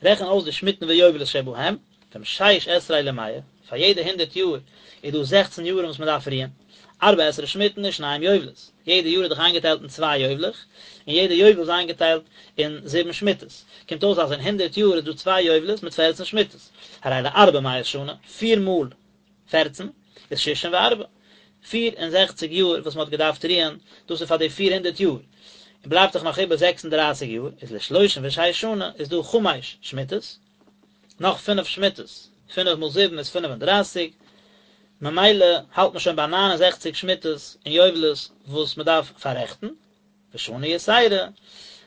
רעכן אויס די שמיטין ויובלות שבהם, פון שש עשרה למאה, פאר יעדע הונדערט יאר איז דא זעכצן יארן וואס מען דארף רוען, ארבע עשרה שמיטין ושניים יובלות, יעדע יאר איז דאך איינגעטיילט אין צוויי יובל'עך, און יעדע יובל איז איינגעטיילט אין זיבן שמיטות, קומט אויס אז אין הונדערט יאר איז דא צוויי יובלות מיט פערצן שמיטות, הרי לארבע מאות שנה, פיר מאל פערצן איז שישים וארבע, 64 יאר וואס מען האט געדארפט רוען, דאס איז פאר די 400 יאר, און בלייבט דאך נאך איבער 36 יאר, איז לשלושים ושש שנה איז דא חמש שמיטות, נאך פינף שמיטות, פינף מאל זיבן איז 35, ממילא האלט מען שוין ביי 69 שמיטות און יובלות וואס מען דארף פאררעכטן, ושנה יתירה,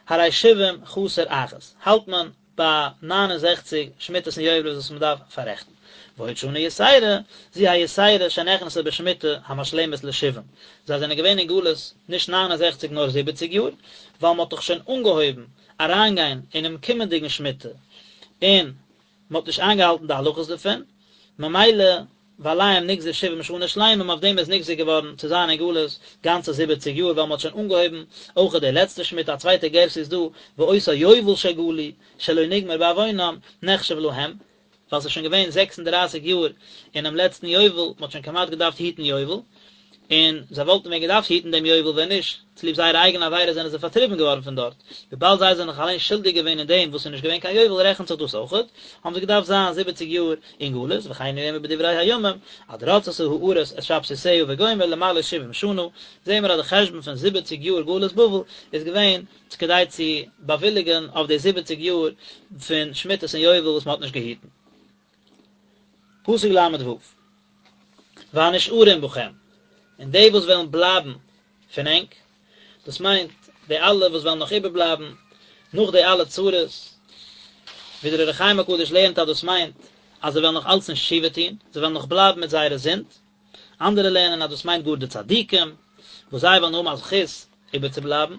הרי שבעים חסר אחת, האלט מען ביי 69 שמיטות און יובלות וואס מען דארף פאררעכטן. ועוד שנה יתירה, זו היתירה שנכנסה בשמיטה המשלמת לשבעים, זיי זענען געווען אין גלות נישט 69 נאר זיבעציג יאר, ווייל מען האט דאך שוין אנגעהויבן אריינגיין אינעם קומענדיגן שמיטה, און מען האט נישט איינגעהאלטן די הלכות דערפון, ממילא ועליהם נגזר שבעים שנה שלימים, אויף דעם איז נגזר געווארן צו זיין אין גלות גאנצע זיבעציג יאר, ווייל מען האט שוין אנגעהויבן אויכעט די לעצטע שמיטה, א צווייטע גירסא איז דא, ואותו יובל שגלו שלא נגמר בעוונם נחשב להם, ווייל ס'איז שוין געווען 36 יאר אינעם לעצטן יובל, מ'האט שוין כמעט געדארפט היטן יובל, און זיי וואלטן ווען געדארפט היטן דעם יובל ווען נישט צוליב זייערע אייגענע עבירות זענען זיי פארטריבן געווארן פון דארט, וויבאלד זיי זענען זיך אליין שולדיג געווען אין דעם וואס ס'איז נישט געווען קיין יובל רעכנט זיך דאס אויכעט, האבן זיי געדארפט זיין זיבעציג יאר אין גלות, וכן הוא אומר בדברי הימים, עד רצתה הארץ את שבתותיה וגומר למלאות שבעים שנה, זעהן מיר אז די חשבון פון זיבעציג יאר גלות בבל איז געווען כדי צו באוויליגען אויף די זיבעציג יאר פון שמיטות און יובל וואס מען האט נישט געהיטן. פסוק ל"ו, והנשארים בכם, און די וואס וועלן בלייבן פון ענק, דאס מיינט די אלע וואס וועלן נאך איבערבלייבן נאך די אלע צרות, ווי דער אור החיים הקדוש לערנט אז דאס מיינט אז זיי וועלן נאך אלץ נישט תשובה טון, זיי וועלן נאך בלייבן מיט זייערע זינד, אנדערע לערנען אז דאס מיינט גאר די צדיקים, וואס זיי וועלן האבן א זכות איבערצובלייבן,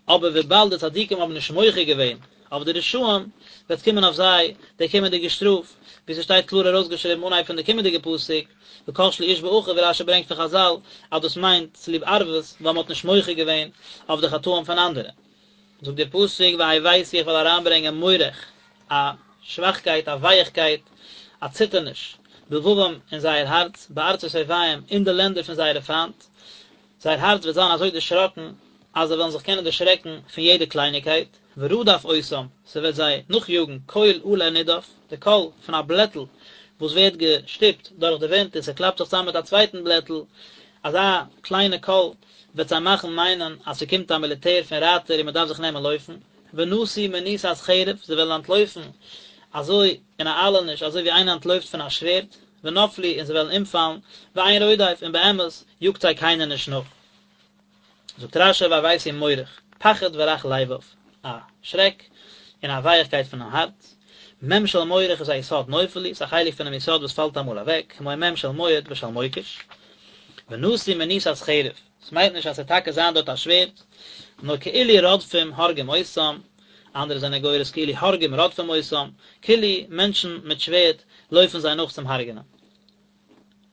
אבער וויבאלד די צדיקים האבן נישט מוחה געווען אויף די רשעים, וועט קומען אויף זיי די קומענדיגע שטראף, ווי ס'שטייט קלאר ארויסגעשריבן אנהייב פון די קומענדיגע פסוק, וכשלו איש באחיו ווי רש"י ברענגט פון חז"ל אז דאס מיינט צוליב ערבות ווייל מ'האט נישט מוחה געווען אויף די חטאים פון אנדערע. זאגט דער פסוק והבאתי איך וועל אריינברענגען מורך, א שוואכקייט, א ווייעכקייט, א ציטערניש, בלבבם אין זייער הארץ, בארצות אויביהם, אין די לענדער פון זייערע פיינט, זייער הארץ וועט זיין אזוי דערשראקן, אז זיי וועלן זיך קענען דערשרעקן פון יעדע קלייניקייט, ורדף אותם, ס'וועט זיי נאכיאגן, קול עלה נדף, די קול פון א בלעטל וואס ווערט געשטופט דורך די ווינט און ס'קלאפט זיך צוזאם מיט א צווייטן בלעטל, אזא קליינע קול וועט זיי מאכן מיינען אז ס'קומט א מיליטער פון רייטער און מ'דארף זיך נעמען לויפן, ונסו מנוסת חרב, זיי וועלן אנטלויפן אזוי אין א איילעניש אזוי ווי איינער אנטלויפט פון א שווערד, ונפלו און זיי וועלן אומפאלן, ואין רודף, און באמת יאגט זיי קיינער נישט נאך. זאגט רש"י והבאתי מורך, פחד ורך לבב, א שרעק און א ווייעכקייט פונעם הארץ, מ' של מורך איז א יסוד נופל הוא, ס'איז א חלק פונעם יסוד וואס פאלט אמאל אוועק, כמו מ' של מועד ושל מוקש. ונסו מנוסת חרב, ס'מיינט נישט אז ס'וועט טאקע זיין דארט א שווערד, נאר כאילו רודפים הורגים אותם, אנדערע זענען גורס כאילו הורגים רודפים אותם, כאילו מענטשן מיט שווערד לויפן זיי נאך צום הרג'נען.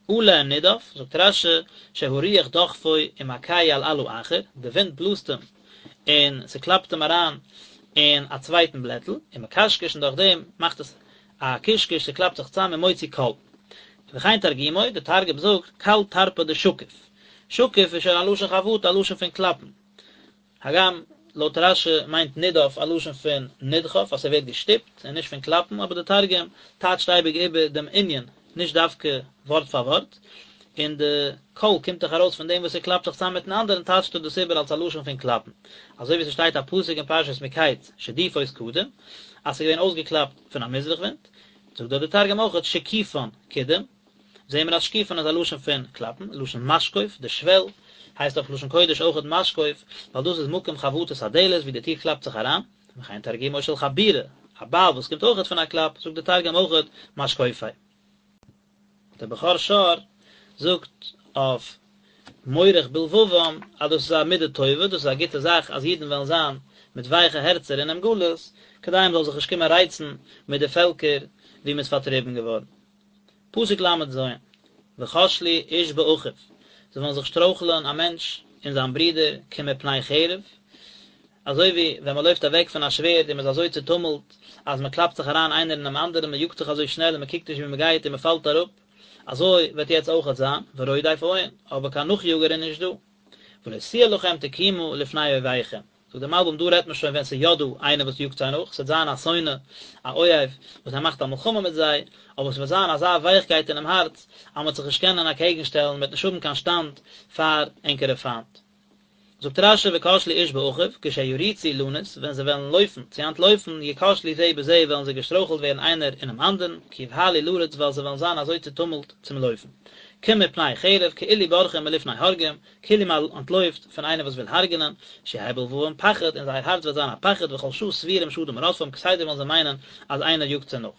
עלה נדף, זאגט רש"י, שהרוח דוחפו ומכהו על עלה אחר, די ווינט בלאזט אים און ס'קלאפט אים אריין אין א צווייטן בלעטל, ומקשקש און דורך דעם מאכט עס א קשקוש, ס'קלאפט זיך צאם ומוציא קול. וכן תרגומו, די תרגום זאגט, קל טרפא דשקיף. שקיף איז שוין א לשון חבטה, א לשון פון קלאפן. הגם לויט רש"י מיינט נדף א לשון פון נדחף אז ס'ווערט געשטופט און נישט פון קלאפן, אבער די תרגום טייטשט אייביג איבער דעם ענין, נישט דווקא ווארט פאר ווארט, און די קול קומט דאך ארויס פון דעם וואס ס'קלאפט זיך צאם מיטן אנדערן טייטשט ער דאס איבער אלס א לשון פון קלאפן, אזוי ווי ס'שטייט א פסוק אין פרשת מקץ שדיפות קדים אז ס'איז געווען אויסגעקלאפט פון א מזרח ווינט, זאגט דארט די תרגום אויכעט שקיפן קדים. זעהן מיר אז שקיפן איז א לשון פון קלאפן, לשון משקוף, די שוועל, הייסט אויף לשון קודש אויכעט משקוף, ווייל דאס איז מקום חבטת הדלת ווי די טיר קלאפט זיך אריין, וכן תרגומו של חבורה, א בייל וואס קומט אויכעט פון א קלאפ, זאגט די תרגום אויכעט משקופי. דער בכור שור זאגט אויף מורך בלבבם אז דאס איז א מידה טובה, דאס איז א גוטע זאך אז אידן וועלן זיין מיט ווייכע הערצער אינעם גלות, כדי מען זאל זיך נישט קומען רייצן מיט די פעלקער וואו מען איז פארטריבן געווארן. פסוק ל"ז, וכשלו איש באחיו, זיי וועלן זיך שטרויכלען א מענטש אין זיין ברודער כמפני חרב, אזוי ווי ווען מען לויפט אוועק פון א שווערד און מען איז אזוי צוטומלט אז מען קלאפט זיך אריין איינער אינעם אנדערן, מען יאגט זיך אזוי שנעל און מען קוקט נישט וואו מען גייט און מען פאלט אראפ, אזוי וועט יעצט אויכעט זיין, ורודף אין, אבער קיין נאכיאגער איז נישט דא. ולא תהיה לכם תקומה לפני אויביכם. זאגט דער מלבי"ם דא רעדט מען שוין ווען ס'איז יא דא איינער וואס יאגט זיי נאך, ס'וועט זיין א שונא, א אויב, וואס ער מאכט א מלחמה מיט זיי, אבער ס'וועט זיין אזא ווייכקייט אינעם הארץ, אז מ'וועט זיך נישט קענען אקעגן שטעלן, מ'וועט נישט האבן קיין שטאנד פאר ענקערע פיינט. זאגט רש"י וכשלו איש באחיו, כשירוצו לנוס, ווען זיי וועלן לויפן, צו אנטלויפן, יכשלו זה בזה וועלן זיי געשטרויכלט ווערן איינער אינעם אנדערן, כי יבהלו לרוץ ווייל זיי וועלן זיין אזוי צוטומלט צום לויפן. כמפני חרב, כאילו בורחים מלפני הורגים, כאילו מען אנטלויפט פון איינער וואס וויל הרג'נען, שיהא בלבבם פחד, אין זייער הארץ וועט זיין א פחד, וכל שעה סבורים שאדם רודפם, כסדר וועלן זיי מיינען אז איינער יאגט זיי נאך.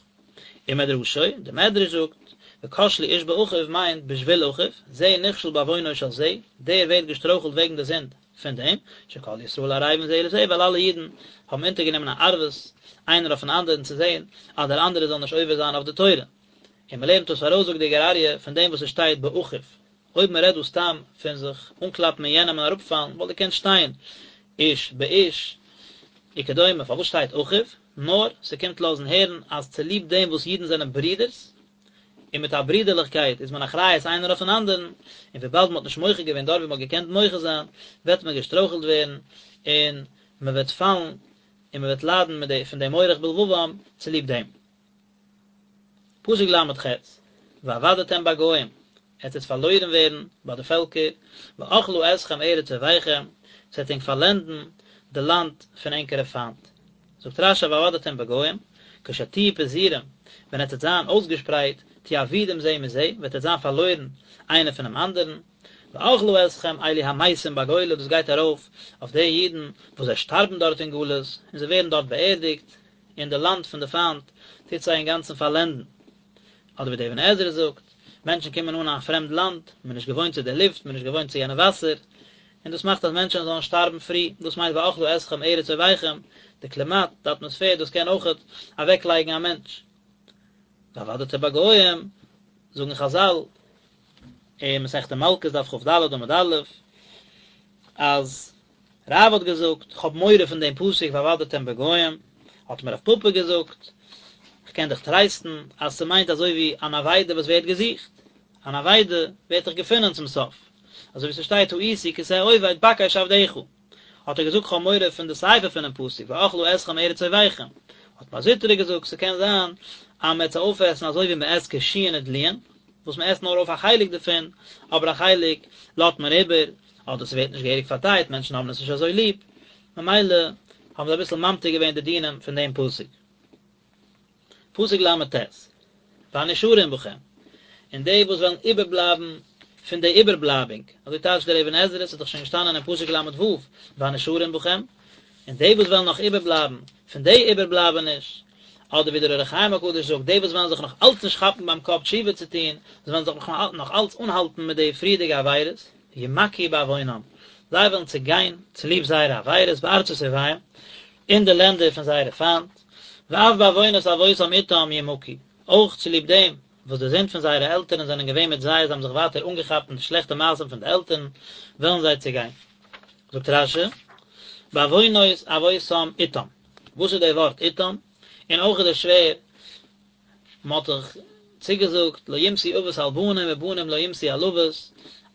ומדרשו, דער מדרש זאגט, וכשלו איש באחיו מיינט בשביל אחיו, זה נכשל בעוונו של זה, דער ווערט געשטרויכלט וועגן די זינד פון דעם, שכל ישראל ערבים זה לזה, ווייל אלע אידן האבן אונטערגענומען א ערבות איינער אויפן אנדערן צו זען אז דער אנדערער זאל נישט עובר זיין אויף די תורה. און מען לערנט דאס ארויס זאגט די גור אריה פון דעם וואס עס שטייט באחיו, אויב מען רעדט דא סתם פון זיך אנקלאפן אין יענעם און אראפפאלן וואלט געקענט שטיין איש באיש וכדומה, פארוואס שטייט אחיו? נאר ס'קומט לאזן הערן אז צוליב דעם וואס אידן זענען ברידערס, און מיט א ברידערליכקייט איז מען אחריות איינער אויפן אנדערן, און וויבאלד מען האט נישט מוחה געווען דארט ווי מען האט געקענט מוחה זיין, וועט מען געשטרויכלט ווערן און מען וועט פאלן און מען וועט ליידן מיט די פון די מורך בלבבם צוליב דעם. פסוק ל"ח, ואבדתם בגוים, עטס וועט פארלוירן ווערן ביי די פעלקער, ואכלה אתכם ארץ אויביכם, ס'וועט ענק פארלענדן די לאנד פון ענקערע פיינט. זאגט רש"י ואבדתם בגוים, כשתהיו פזורים, ווען עטס וועט זיין אויסגעשפרייט, תהיו אבודים זה מזה, וועט עטס זיין פארלוירן איינער פונעם אנדערן, ואכלה אתכם אלו המתים בגולה, דאס גייט ארויף אויף די אידן וואס זיי שטארבן דארט אין גלות, און זיי ווערן דארט באערדיגט, און די לאנד פון די פיינט טוט זיי אינגאנצן פארלענדן. אדער ווי דער אבן עזרא זאגט, מענטשן קומען אן אין א פרעמד לאנד, מען איז נישט געוואוינט צו די לופט, מען איז נישט געוואוינט צו יענע וואסער, און דאס מאכט אז מענטשן זאלן שטארבן פרי, דאס מיינט ואכלה אתכם ארץ אויביכם, די קלימאט, די אטמאספער, דאס קען אויכעט אוועקלייגן א מענטש. ואבדתם בגוים, זאגן חזל, אין מסכת מלקות דף כ"ד עמוד א', אז רב האט געזאגט, כ'האב מורא פון דעם פסוק ואבדתם בגוים, האט אים רב פפא געזאגט, כ'קען דיך טרייסטן אז ס'מיינט אזוי ווי אן אבידה וואס ווערט געזוכט, אן אבידה ווערט דאך געפונען צום סוף, אזוי ווי ס'שטייט תעיתי כשה אובד בקש עבדך, האט ער געזאגט כ'האב מורא פון די סיפא פונעם פסוק ואכלה אתכם ארץ אויביכם, האט מר זוטרא געזאגט ס'קען זיין אז מ'וועט זיי אויפעסן אזוי ווי מ'עסט קישואין ודלועין, וואס מ'עסט נאר אויף א חלק דערפון, אבער א חלק לאזט מען איבער, אדער ס'ווערט נישט געהעריג פארדייט, מענטשן האבן עס נישט אזוי ליב, ממילא האבן זיי אביסל ממתיק געווען די דינים פון דעם פסוק. פסוק ל"ט, והנשארים בכם, און די וואס וועלן איבערבלייבן פון די איבערבלייבונג, אזוי טייטשט דער אבן עזרא, ס'איז דאך שוין געשטאנען אין פסוק ל"ו, והנשארים בכם, און די וואס וועלן נאך איבערבלייבן פון די איבערבלייבעניש, אדער ווי דער אור החיים הקדוש זאגט, די וואס וועלן זיך נאך אלץ נישט כאפן ביים קאפ תשובה צו טון, זיי וועלן זיך נאך אלץ אנהאלטן מיט די פריערדיגע עבירות, ימכו בעוונם, זיי וועלן צעגיין צוליב זייערע עבירות בארצות אויביהם, אין די לענדער פון זייערע פיינט, ואף בעוונות אבותם איתם ימכו, אויך צוליב דעם וואס די זינד פון זייערע עלטערן זענען געווען מיט זיי, זיי האבן זיך ווייטער אנגעכאפט אין די שלעכטע מעשים פון די עלטערן, וועלן זיי צעגיין. זאגט רש"י, בעוונות אבותם איתם, וואס איז די ווארט איתם? און אויך איז דאס שווער, מען האט דאך צוגעזאגט לא יומתו אבות על בנים ובנים לא יומתו על אבות,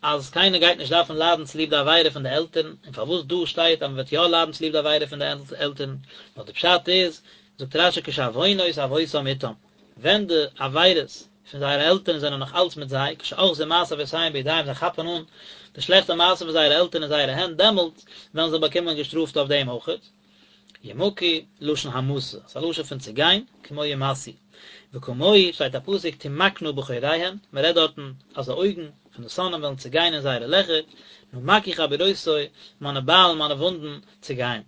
אז קיינער גייט נישט דארפן ליידן צוליב די עבירה פון די עלטערן, און פארוואס דא שטייט אז מען וועט יא ליידן צוליב די עבירה פון די עלטערן, נאר די פשט איז, זאגט רש"י כשעוונות אבותם איתם, ווען די עבירות פון זייערע עלטערן זענען נאך אלץ מיט זיי, כשאוחזין מעשה אבותיהם בידיהם זיי כאפן אן די שלעכטע מעשים פון זייערע עלטערן אין זייערע הענט, דעמאלט וועלן זיי באקומען געשטראפט אויף דעם אויכעט. ימכו, לשון המתה, ס'איז א לשון פון צעגיין, כמו ימאסו. וכמוהו שטייט א פסוק תמקנה בחוריהן, מען רעדט דארטן אז די אויגן פון די שונאים וועלן צעגיין אין זייערע לעכער, נמקו חבורותי, מיינע ביילן, מיינע וואונדן, צעגייען.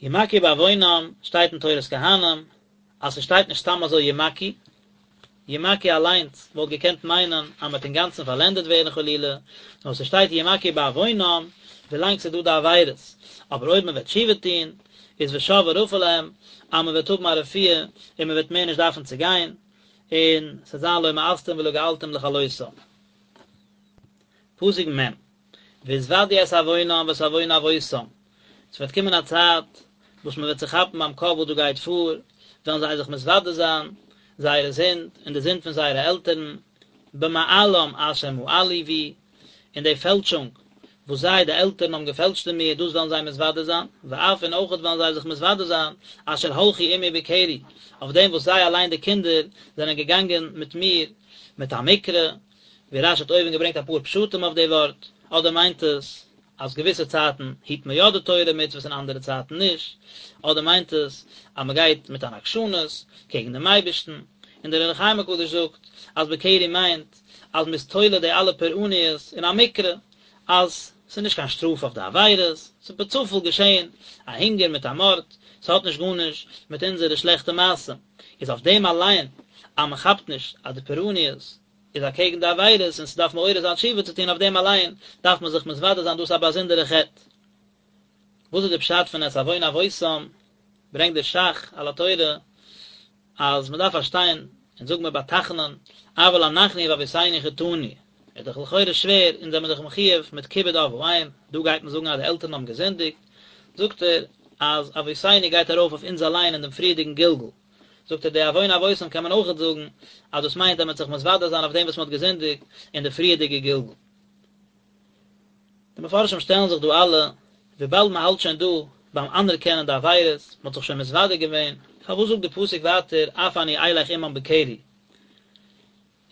ימכו בעוונם, שטייט אין תורת כהנים, אז ס'שטייט נישט סתם אזוי ימכו, ימכו אליינס וואלט געקענט מיינען אז מ'וועט אינגאנצן פארלענדעט ווערן חלילה, נאר ס'שטייט ימכו בעוונם ווילאנג ס'איז דא די עבירות, אבער אויב מ'וועט תשובה טון איז ושב ורפא להם אז מ'וועט האבן א רפואה און מ'וועט מער נישט דארפן צו גיין, און ס'וועט זיין לא מאסתים ולא געלתים לכלותם. פסוק מ', והתודו את עוונם ואת עוון אבותם, ס'וועט קומען א צייט וואס מ'וועט זיך כאפן ביים קאפ וואס דא גייט פאר, וועלן זיי זיך מתוודה זיין זייערע זינד און די זינד פון זייערע עלטערן, במעלם אשר מעלו בי, אין די פעלשונג וואס זיי, די עלטערן, האבן געפעלשט אין מיר, דאס וועלן זיי מתוודה זיין, ואף און אויכעט וועלן זיי זיך מתוודה זיין, אשר הלכו עמי בקרי, אויף דעם וואס זיי אליין די קינדער זענען געגאנגען מיט מיר מיט א מקרה, ווי רש"י האט אויבן געברענגט אפאר פשטים אויף די ווארט, אדער מיינט עס אז געוויסע צייטן היט מען יא די תורה ומצוות און אנדערע צייטן נישט, אדער מיינט עס אז מען גייט מיט אן עקשנות קעגן דעם אייבערשטן. און דער אור החיים הקדוש זאגט אז בקרי מיינט אז מ'איז תולה די אלע פורעניות אין א מקרה, אז ס'איז נישט קיין שטראף אויף די עבירות, ס'איז בצופאל געשען א הונגער מיט א מארד, ס'האט נישט גארנישט מיט אונזערע שלעכטע מעשים, איז אויף דעם אליין אז מ'כאפט נישט אז די פורעניות איז אקעגן די עבירות און ס'דארף מעורר זיין תשובה צו טון אויף דעם אליין דארף מען זיך מתוודה זיין דאס איז א באזונדערע חטא. וואס איז די פשט פון את עוון אבותם? ברענגט דער ש"ך על התורה אז מ'דארף פארשטיין אונז זאג מיר ביי תחנון אבל אנחנו ואבותינו חטאנו איז דאך לכאורה שווער אונז זעמיר דאך מחיוב מיט כיבוד אב ואם דא גייט מען זאגן אז די עלטערן האבן געזינדיגט זאגט ער אז אבותינו גייט ארויף אויף אונז אליין אין דעם פריערדיגן גלגול זאגט ער די עוון אבותם קען מען אויכעט זאגן אז דאס מיינט אז מען וועט זיך מתוודה זיין אויף דעם וואס מען האט געזינדיגט אין די פריערדיגע גלגול. די מפרשים שטעלן זיך דא אלע, וויבאלד מען האלט שוין דא ביים אנערקענען די עבירות, מען האט זיך שוין מתוודה געווען, פארוואס זאגט די פסוק ווייטער אף אני אלך עמם בקרי?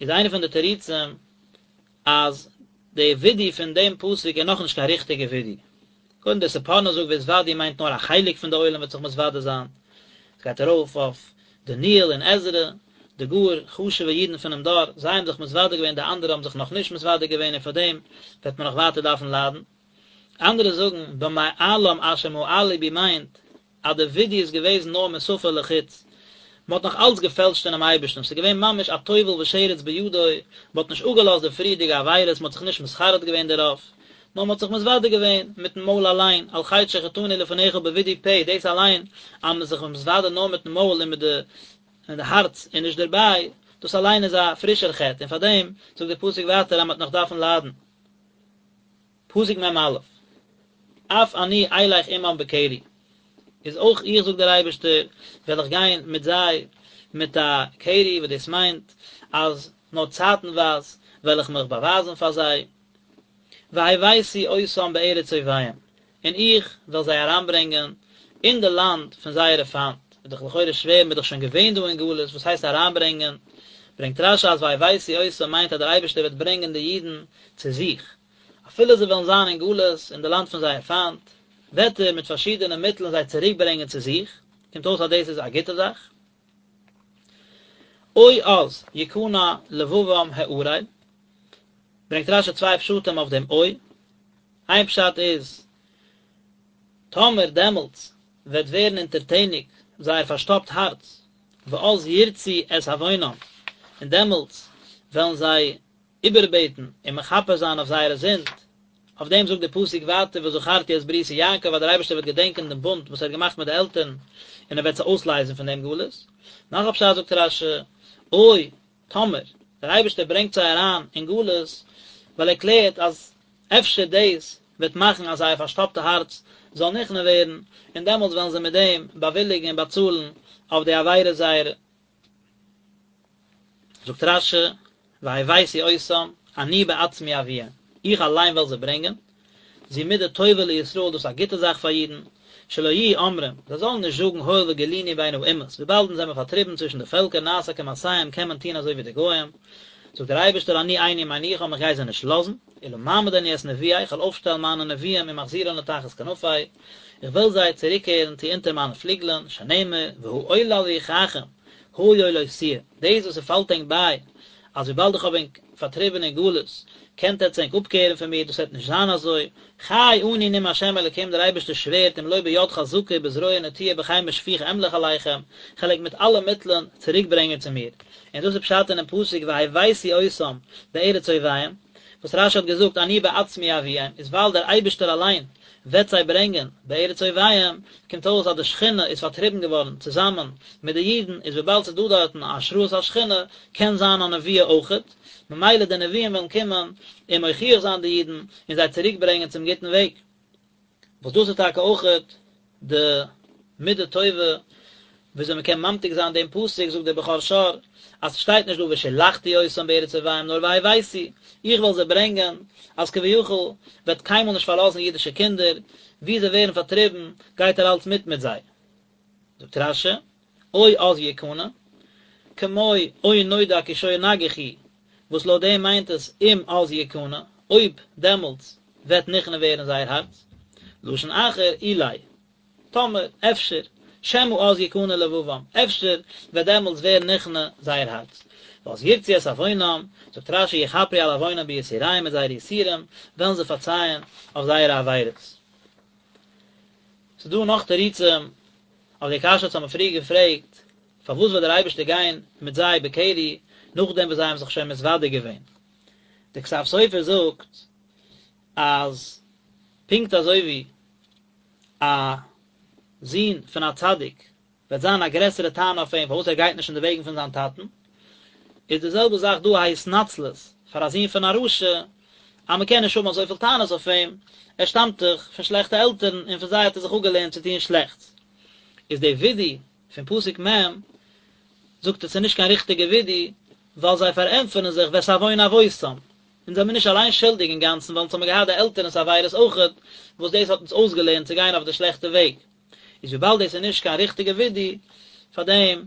איז איינע פון די תירוצים אז די ווידוי פון דעם פסוק איז נאכנישט קיין ריכטיגע ווידוי. קודם דער ספורנו זאגט והתודו מיינט נאר א חלק פון די עולם וועט זיך מתוודה זיין. עס גייט ארויף אויף דניאל און עזרא, די גאר חשוב'ע אידן פונעם דור, זיי האבן זיך מתוודה געווען די אנדערע האבן זיך נאכנישט מתוודה געווען און פאר דעם וועט מען נאך ווייטער דארפן ליידן. אנדערע זאגן במעלם אשר מעלו בי מיינט אז די ווידוי איז געוועזן נאר משפה לחוץ, מען האט נאך אלץ געפעלשט אינעם אייבערשטן, ס'איז געווען ממש א טובל ושרץ בידו, מען האט נישט אפגעלאזט די פריערדיגע עבירות, מען האט זיך נישט מתחרט געווען דערויף, נאר מען האט זיך מתוודה געווען מיטן מויל אליין, על חטא שחטאנו לפניך בווידוי פה, דאס אליין אז מען איז זיך מתוודה נאר מיטן מויל און מיט די און די הארץ איז נישט דערביי, דאס אליין איז א פרישער חטא, און פארדעם זאגט דער פסוק ווייטער אז מען וועט נאך דארפן ליידן. פסוק מ"א, אף אני אלך עמם בקרי, איז אויך איך זאגט דער אייבערשטער וועל איך גיין מיט זיי מיט א קרי, וואס דאס מיינט אז נאר צייטנווייז וועל איך מיך באווייזן פאר זיי, והבאתי אותם בארץ אויביהם, און איך וועל זיי אריינברענגען אין די לאנד פון זייערע פיינט, איז דאך לכאורה שווער, מען איז דאך שוין געווען דא אין גלות, וואס הייסט אריינברענגען? ברענגט רש"י אז והבאתי אותם מיינט אז דער אייבערשטער וועט ברענגען די אידן צו זיך, אפילו זיי וועלן זיין אין גלות אין די לאנד פון זייער פיינט, וועט ער מיט פארשידענע מיטלען זיי צוריקברענגען צו זיך, קומט אויס אז דאס איז א גוטע זאך. או אז יכנע לבבם הערל, ברענגט רש"י צוויי פשטים אויף דעם או, איין פשט איז, טאמער דעמאלטס וועט ווערן אונטערטעניג זייער פארשטאפט הארץ, ואז ירצו את עוונם, און דעמאלטס וועלן זיי איבערבעטן און מכפר זיין אויף זייערע זינד, אויף דעם זאגט דער פסוק ווייטער וזכרתי את בריתי יעקב אז דער אייבערשטער וועט געדענקען דעם בונד וואס ער האט געמאכט מיט די עלטערן און ער וועט זיי אויסלייזן פון דעם גלות. נאך א פשט זאגט רש"י, או, טאמער, דער אייבערשטער ברענגט זיי אריין אין גלות, ווייל ער קלערט אז אפשר דאס וועט מאכן אז זייער פארשטאפטע הארץ זאל נכנע ווערן, און דעמאלטס וועלן זיי מיט דעם באוויליגן און באצאלן אויף די עבירות זייערע. זאגט רש"י, והבאתי אותם, אני בעצמי אביאם, איך אליין וועל זיי ברענגען, זו מידה טובה לישראל, דאס איז א גוטע זאך פאר אידן, שלא יהיו אומרים, זיי זאלן נישט זאגן הואיל וגלינו בין האומות, וויבאלד אונז זעמער פארטריבן צווישן די פעלקער נעשה כמעשיהם קען מען טון אזוי ווי די גוים, זאגט דער אייבערשטער אני איני מניחם איך גיי זיי נישט לאזן, אלא מעמיד אני את נביאי, איך וועל אויפשטעלן מיינע נביאים ומחזירן לתחת כנפי, איך וועל זיי צוריקקערן צו אונטער מיינע פליגלען, שנאמר, והעולה על רוחכם, היה לא תהיה, דאס וואס ס'פאלט ענק ביי, אז וויבאלד איך האב ענק פארטריבן אין גלות, קענט עטץ ענק אפקערן פון מיר, דאס וועט נישט זיין אזוי, חי אני נאם השם אלוקים דער אייבערשטער שווערט אם לא ביד חזקה ובזרוע נטויה ובחמה שפוכה אמלוך עליכם, כ'על ענק מיט אלע מיטלען צוריקברענגען צו מיר. און דאס איז פשט אינעם פסוק והבאתי אותם בארץ אויביהם, וואס רש"י האט געזאגט אני בעצמי אביאם, איז ווייל דער אייבערשטער אליין וועט זיי ברענגען בארץ אויביהם, קומט אויס אז די שכינה איז פארטריבן געווארן צוזאמען מיט די אידן, איז וויבאלד ס'איז דא דארטן א השראת השכינה, קען זיין א נבואה אויכעט, ממילא די נביאים וועלן קומען און מוכיח זיין די אידן און זיי צוריק ברענגען צום גוטן וועג. וואס דאס איז טאקע אויכעט די מידה טובה וויאזוי מען קען ממתיק זיין דעם פסוק, זאגט דער בכור שור, אז ס'שטייט נישט דא ושלחתי אותם בארץ אויביהם נאר והבאתי, איך וועל זיי ברענגען, אז כביכול וועט קיינמאל נישט פארלאזן אידישע קינדער, וואו זיי ווערן פארטריבן גייט ער אלץ מיט מיט זיי. זאגט רש"י, או אז יכנע, כמו או נודע כי שור נגח הוא, וואס לויט דעם מיינט עס אם אז יכנע, אויב דעמאלטס וועט נכנע ווערן זייער הארץ, לשון אחר אולי, טאמער, אפשר, שמא אז יכנע לבבם, אפשר וועט דעמאלטס ווערן נכנע זייער הארץ. ואז ירצו את עוונם, זאגט רש"י יכפרו על עוונם ביסוריהם מיט זייערע יסורים וועלן זיי פארצייען אויף זייערע עבירות. ס'איז דא נאך תירוצים אויף די קשיא וואס האבן מיר פריער געפרעגט, פארוואס וועט דער אייבערשטער גיין מיט זיי בקרי נאכדעם וואס זיי האבן זיך שוין מתוודה געווען? דער כתב סופר זאגט אז פונקט אזוי ווי א זון פון א צדיק וועט זיין א גרעסערע טענה אויף אים פארוואס ער גייט נישט אין די וועגן פון זיין טאטן, איז די זעלבע זאך דא א התנצלות פאר א זון פון א רשע, אז מען קען נישט האבן אזויפיל טענות אויף אים, ער שטאמט דאך פון שלעכטע עלטערן און פון זיי האט ער זיך אפגעלערנט צו טון שלעכטס. איז די וידוי פון פסוק מ' זאגט ער ס'איז נישט קיין ריכטיגע וידוי, ווייל זיי פארענטפערן זיך ואת עוון אבותם, אונז זעמיר נישט אליין שולדיג אינגאנצן ווייל אונז האמיר געהאט די עלטערנס עבירות אויכעט, וואס דאס האט אונז אויסגעלערנט צו גיין אויף די שלעכטע וועג. איז וויבאלד דאס איז נישט קיין ריכטיגע וידוי, פאר דעם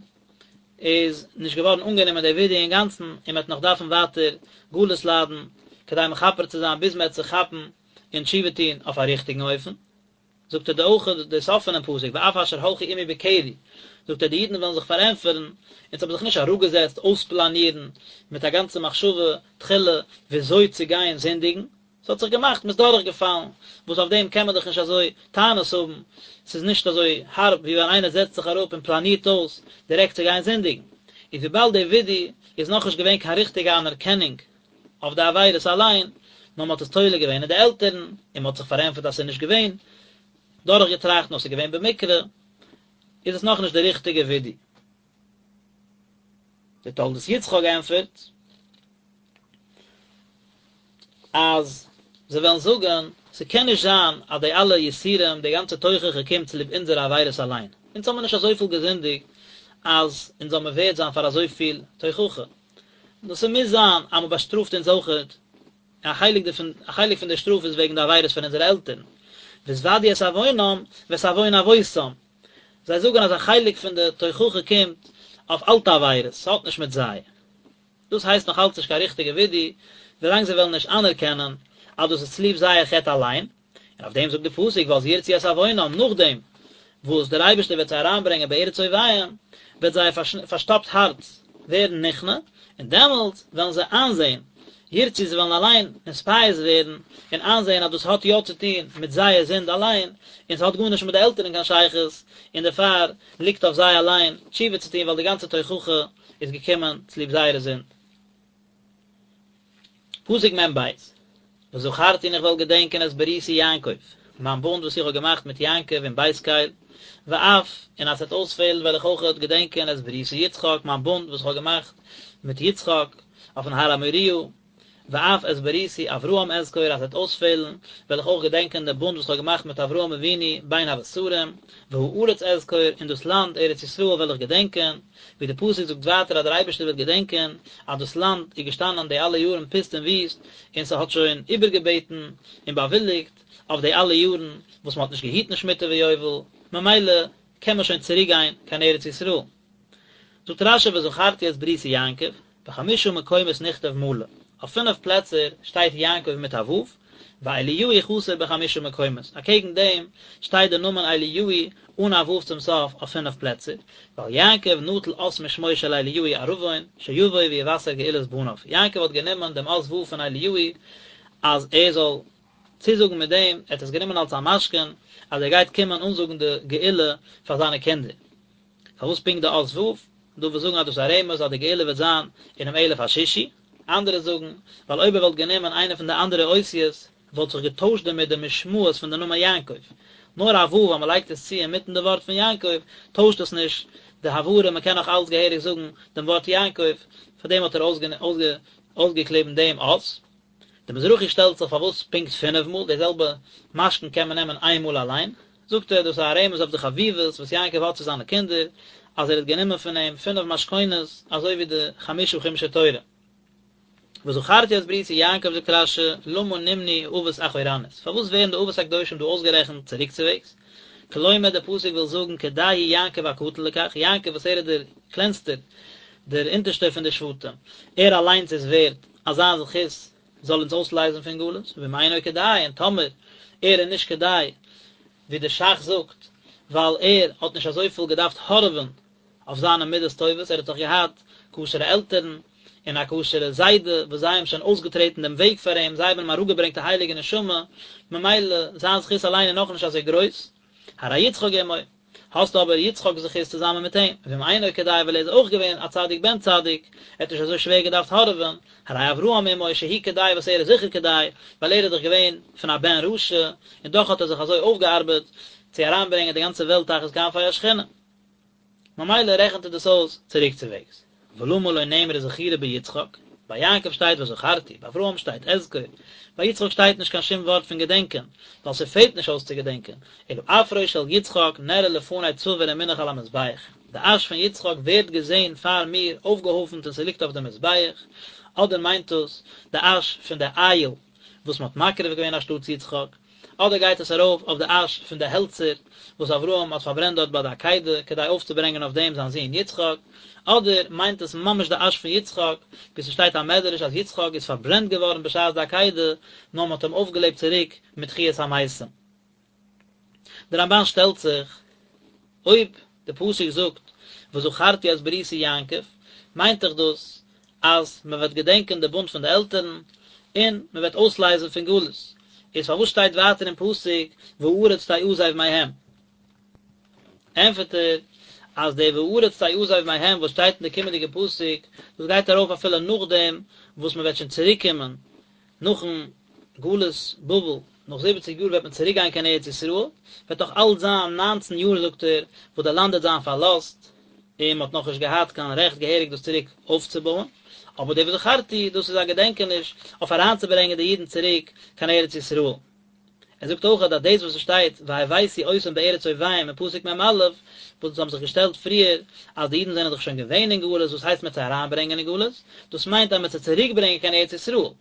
איז נישט געווארן אנגענומען די וידוי אינגאנצן, און מען וועט נאך דארפן ווייטער גלות ליידן כדי מכפר צו זיין ביז מען וועט זיך כאפן און תשובה טון אויף א ריכטיגן אופן. זאגט ער דא אויך די סוף פונעם פסוק ואף אשר הלכו עמי בקרי, זאגט ער די אידן וועלן זיך פארענטפערן, אונז האבן זיך נישט אראפגעזעצט אויספלאנירן מיט א גאנצע מחשבה תחילה וויאזוי צו גיין זינדיגן, ס'האט זיך געמאכט, מ'איז דורכגעפאלן, וואס אויף דעם קען מען דאך נישט אזוי טענות האבן, ס'איז נישט אזוי הארב ווי ווען איינער זעצט זיך אראפ און פלאנירט אויס דירעקט צו גיין זינדיגן. איז וויבאלד די וידוי איז נאכנישט געווען קיין ריכטיגע אנערקענונג אויף די עבירות אליין, נאר מ'האט עס תולה געווען אין די עלטערן, און מ'האט זיך פארענטפערט אז ס'איז נישט געווען דורכגעטראכט נאר ס'איז געווען במקרה, איז עס נאכנישט די ריכטיגע וידוי. דער תולדות יצחק ענטפערט אז זיי וועלן זאגן, ס'קען נישט זיין אז די אלע יסורים, די גאנצע תוכחה קומט צוליב אונזערע עבירות אליין. אונז האמיר נישט אזויפיל געזינדיגט אז אונז זאל מיר ווערד זיין פאר אזויפיל תוכחה. נאר ס'מוז זיין אז מ'באשטראפט אונז אויכעט, א חלק דערפון, א חלק פון די שטראף איז וועגן די עבירות פון אונזערע עלטערן. והתודו את עוונם ואת עוון אבותם. זיי זאגן אז א חלק פון די תוכחה קומט אויף אלטע עבירות, ס'האט נישט מיט זיי. דאס הייסט נאך אלץ נישט קיין ריכטיגע וידוי, ווילאנג זיי וועלן נישט אנערקענען אז דאס איז צוליב זייער חטא אליין. און אויף דעם זאגט די פסוק ואז ירצו את עוונם, נאכדעם וואס דער אייבערשטער וועט זיי אריינברענגען בארץ אויביהם, וועט זייער פארשטאפט הארץ ווערן נכנע, און דעמאלט וועלן זיי איינזען, ירצו זיי וועלן אליין נתפייס ווערן און איינזען אז דאס האט יא צו טון מיט זייער זינד אליין, און ס'האט גארנישט מיט די עלטערן קיין שייכות, און דערפאר ליגט אויף זיי אליין תשובה צו טון ווייל די גאנצע תוכחה איז געקומען צוליב זייערע זינד. פסוק מ ב, וזכרתי און איך וועל געדענקען את בריתי יעקב, מיין בונד וואס איך האב געמאכט מיט יעקב אין בית קל, ואף, און אז ס'וועט אויספעלן וועל איך אויכעט געדענקען את בריתי יצחק, מיין בונד וואס איך האב געמאכט מיט יצחק אויפן הר המוריה, ואף את בריתי אברהם אזכור, אז ס'וועט אויספעלן וועל איך אויך געדענקען דעם בונד וואס איך האב געמאכט מיט אברהם אבינו בין הבתרים, והארץ אזכור, און דאס לאנד ארץ ישראל וועל איך געדענקען, ווי די פסוק זאגט ווייטער אז דער אייבערשטער וועט געדענקען אז דאס לאנד איז געשטאנען די אלע יארן פוסט און וויסט, און ס'האט שוין איבערגעבעטן און באוויליגט אויף די אלע יארן וואס מ'האט נישט געהיטן שמיטה ויובל, ממילא קען מען שוין צוריק גיין קיין ארץ ישראל. זאגט רשי וזכרתי את בריתי יעקב, בחמשה מקומות נכתב מלא, אויף פינף פלעצער שטייט יעקב מיט א ו', ואליהו חסר בחמשה מקומות, אקעגן דעם שטייט די נאמען אליהו אן א ו' צום סוף אויף פינף פלעצער, ווייל יעקב נטל אות משמו של אליהו ערבון, שיבוא ויבשר גאולת בניו, יעקב האט גענומען דעם אות ו' פון אליהו אז ער זאל צוזאגן מיט דעם, ער האט עס גענומען אלס א משכון אז ער גייט קומען אנזאגן די גאולה פאר זיינע קינדער. פארוואס פונקט די אות ו'? דא וואס זאגן אז דאס איז א רמז אז די גאולה וועט זיין אינעם אלף השישי, אנדערע זאגן ווייל אויב ער וואלט גענומען איינע פון די אנדערע אותיות וואלט זיך געטוישט דערמיט די משמעות פון די נאמען יעקב, נאר א ו' אז מען לייגט עס צו אינמיטן די ווארט פון יעקב טוישט עס נישט די הברה מען קען נאך אלץ געהעריג זאגן דעם ווארט יעקב, פארדעם האט ער אויסגעקליבן דעם אות. די מזרחי שטעלט זיך פארוואס פונקט פינף מאל, די זעלבע משכון קען מען נעמען איין מאל אליין, זאגט ער דאס איז א רמז אויף די חביבות וואס יעקב האט צו זיינע קינדער, אז ער האט גענומען פון אים פינף משכונות אזוי ווי די חמשה חומשי תורה. וזכרתי את בריתי יעקב זאגט רשי, למה נמנו אבות אחורנית, פארוואס ווערן די אבות הקדושים דא אויסגערעכנט צוריקצוועגס? כלומר דער פסוק וויל זאגן כדאי הוא יעקב הקטן לכך, יעקב וואס ער איז דער קלענסטער, דער אונטערשטער פון די שבטים, ער אליינס איז ווערד אז זיין זכות זאל אונז אויסלייזן פון גלות, ואם אינו כדאי, און טאמער ער איז נישט כדאי, ווי דער שך זאגט. ווייל ער האט נישט אזויפיל געדארפט הארעווען אויף זיינע מידות טובות, ער האט דאך געהאט כשר'ע עלטערן און א כשר'ע זיידע וואס זיי האבן שוין אויסגעטרעטן דעם וועג פאר אים, זיי האבן אים אראפגעברענגט א הייליגע נשמה, ממילא זיין זכות אליין איז נאכנישט אזוי גרויס. הרי יצחק עמו, האסט אבער יצחק'ס זכות צוזאמען מיט אים, ואם אינו כדאי ווייל ער איז אויך געווען א צדיק בן צדיק, ער האט נישט אזוי שווער געדארפט הארעווען, הרי אברהם עמו שהוא כדאי וואס ער איז זיכער כדאי, ווייל ער איז דאך געווען פון א בן רשע, און דאך האט ער זיך אזוי אויפגעארבעט צו אריינברענגען די גאנצע וועלט תחת כנפי השכינה. ממילא רעכנט ער דאס אויס צוריקצווועגס. ולמה לא נאמרה זכירה ביצחק? ביי יעקב שטייט וזכרתי, ביי אברהם שטייט אזכור, ביי יצחק שטייט נישט קיין שום ווארט פון געדענקען, ווייל ס'פעלט נישט אויס צו געדענקען, אלא אפרו של יצחק נראה לפני צבור ומונח על המזבח, די אש פון יצחק ווערט געזען פאר מיר אויפגעהויפנט און ס'ליגט אויף די מזבח, אדער מיינט דאס די אש פון די איל וואס מ'האט מקריב געווען אנשטאטס יצחק. אדער גייט עס ארויף אויף די אש פון די העלצער וואס אברהם האט פארברענט דארט ביי די עקידה כדי אויפצוברענגען אויף דעם זיין זון יצחק, אדער מיינט עס ממש די אש פון יצחק, ווי ס'שטייט א מדרש אז יצחק איז פארברענט געווארן בשעת די עקידה, נאר מ'האט אים אויפגעלעבט צוריק מיט תחיית המתים. דער רמבן שטעלט זיך, אויב די פסוק זאגט וזכרתי את בריתי יעקב, מיינט דאך דאס אז מען וועט געדענקען די בונד פון די עלטערן, און מען וועט אויסלייזן פון גלות, איז פארוואס שטייט ווייטער אין פסוק והארץ תעזב מהם? ענטפערט ער אז די והארץ תעזב מהם וואס שטייט אין די קומענדיגע פסוק, דאס גייט ארויף אפילו נאכדעם וואס מען וועט שוין צוריק קומען נאכן גלות בבל, נאך זיבעציג יאר וועט מען צוריק גיין קיין ארץ ישראל, וועט נאך אלץ זיין ניינצן יאר זאגט ער, וואס די לאנד וועט זיין פארלאזט, און מען האט נאכנישט געהאט קיין רעכט געהעריג דאס צוריק אויפצובויען, אבער די וזכרתי דאס איז א געדענקעניש אויף אריינצוברענגען די אידן צוריק קיין ארץ ישראל. ער זאגט אויך אז דאס וואס עס שטייט והבאתי אותם בארץ אויביהם אין פסוק מ"א, וואס אונז האבן זיך געשטעלט פריער אז די אידן זענען דאך שוין געווען אין גלות, וואס הייסט מען וועט זיי אריינברענגען אין גלות? דאס מיינט אז מען וועט זיי צוריקברענגען קיין ארץ ישראל. מען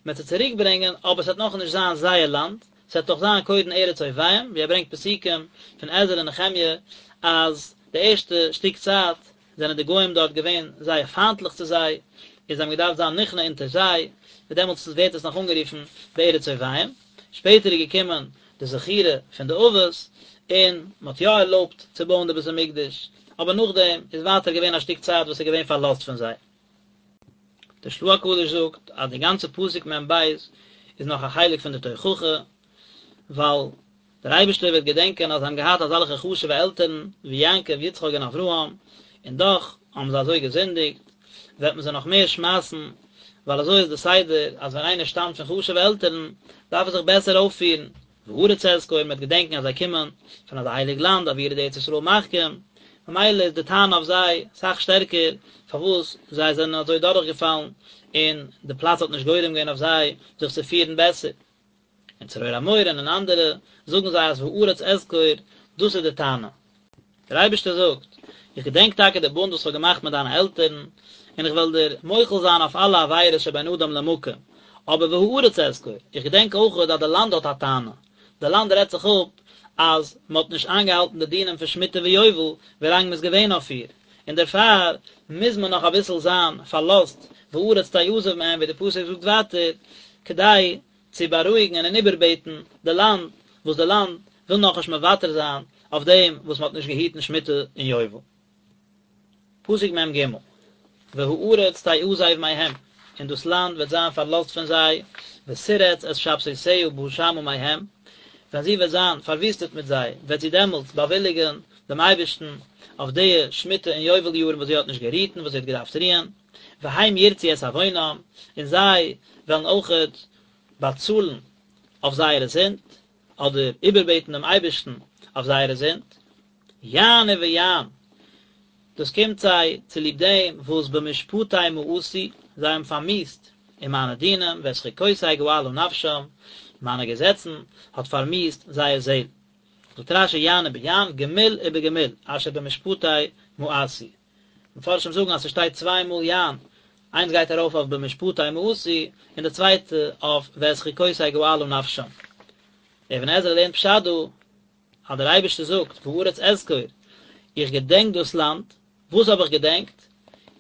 וועט זיי צוריקברענגען, אבער עס וועט נאכנישט זיין זייער לאנד, עס וועט דאך זיין קודם ארץ אויביהם, ווי ער ברענגט פסוקים פון עזרא און נחמיה אז די ערשטע שטיק צייט זענען די גוים דארט געווען זייער פיינטליך צו זיי, און זיי האבן געדארפט זיין נכנע אונטער זיי, און דעמאלטס ווערט עס נאך אנגערופן בארץ אויביהם. שפעטער איז געקומען די זכירה פון די אבות, און מען האט יא ערלויבט צו בויען די בית המקדש, אבער נאכדעם איז ווייטער געווען א שטיק צייט וואס איז געווען פארלאזט פון זיי. דער של"ה הקדוש זאגט אז די גאנצע פסוק מ"ב איז נאך א חלק פון די תוכחה, ווייל דער אייבערשטער וועט געדענקען אז זיי האבן געהאט אזעלכע חשוב'ע עלטערן ווי יעקב, יצחק און אברהם, און דאך האבן זיי אזוי געזינדיגט, וועט מען זיי נאך מער שמייסן, ווייל אזוי איז די סדר אז ווען איינער שטאמט פון חשוב'ע עלטערן, דארף ער זיך בעסער אויפפירן, והארץ אזכור, מען וועט געדענקען אז זיי קומען פון אזא הייליג לאנד, אוירא דארץ ישראל מחכים, ממילא איז די טענה אויף זיי אסאך שטערקער פארוואס זיי זענען אזוי דורכגעפאלן, און די פלאץ האט נישט גורם געווען אויף זיי זיך צו פירן בעסער. אין צרור המור און אין אנדערע זאגן זיי אז והארץ אזכור, דאס איז די טענה. דער אייבערשטער זאגט, איך געדענק טאקע די בונד וואס איך האב געמאכט מיט דיינע עלטערן, און איך וועל דיר מוחל זיין אויף אלע עבירות שבין אדם למקום, אבער והארץ אזכור, איך געדענק אויך אז די לאנד האט א טענה, די לאנד רעדט זיך אפ אז מען האט נישט איינגעהאלטן די דינים פון שמיטה ויובל ווילאנג מען איז געווען אויף איר, און דערפאר מוז מען נאך אביסל זיין פארלאזט והארץ תעזוב מהם ווי די פסוק זאגט ווייטער, כדי צו בארואיגן און איבערבעטן די לאנד, וואס די לאנד וויל נאכנישט מוותר זיין אויף דעם וואס מען האט נישט געהיטן שמיטה און יובל. פסוק מ"ג, והארץ תעזב מהם, און דאס לאנד וועט זיין פארלאזט פון זיי, ותרץ את שבתותיה בשמה מהם, ווען זי וועט זיין פארוויסטעט מיט זיי, וועט זי דעמאלטס באוויליגן דעם אייבערשטן אויף די שמיטה און יובל יארן וואס זי האט נישט גערוהט און וואס זי האט געדארפט רוען. והם ירצו את עוונם, און זיי וועלן אויכעט באצאלן אויף זייערע זינד, אדער איבערבעטן דעם אייבערשטן אויף זייערע זינד, יען וביען, דאס קומט זיי צוליב דעם וואס במשפטי מאסו, זיי האבן פארמיאוסט אין מיינע דינים, ואת חוקותי געלה נפשם, מיינע געזעצן האט פארמיאוסט זייער זעל. זאגט רש"י יען וביען, גמול ובגמול, אשר במשפטי מאסו. מפרשים זאגן אז ס'שטייט צוויי מאל יען, איינס גייט ארויף אויף במשפטי מאסו, און די צווייטע אויף ואת חוקותי געלה נפשם. דער אבן עזרא לערנט פשט דא, אז דער אייבערשטער זאגט והארץ אזכור, איך געדענק דאס לאנד, וואס האב איך געדענקט?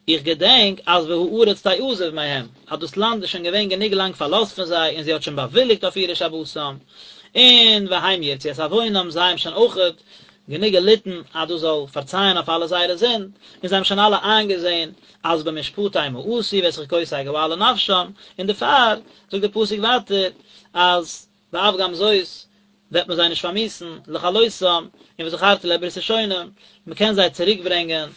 איך געדענק אז והארץ תעזב מהם, אז דאס לאנד איז שוין געווען גענוג לאנג פארלאזט פון זיי און זי האט שוין באוויליגט אויף אירע שבתים, און והם ירצו את עוונם, זיי האבן שוין אויכעט. גענוג געליטן אז דאס זאל פארצייען אויף אלע זייערע זינד, און זיי האבן שוין אלע איינגעזען אז במשפטי מאסו ואת חוקותי געלה נפשם, און דערפאר זאגט דער פסוק ווייטער אז ואף גם זאת וועט מען זיי נישט פארמיאוסן לכלותם, און וזכרתי להם ברית ראשונים, מען קען זיי צוריק ברענגען,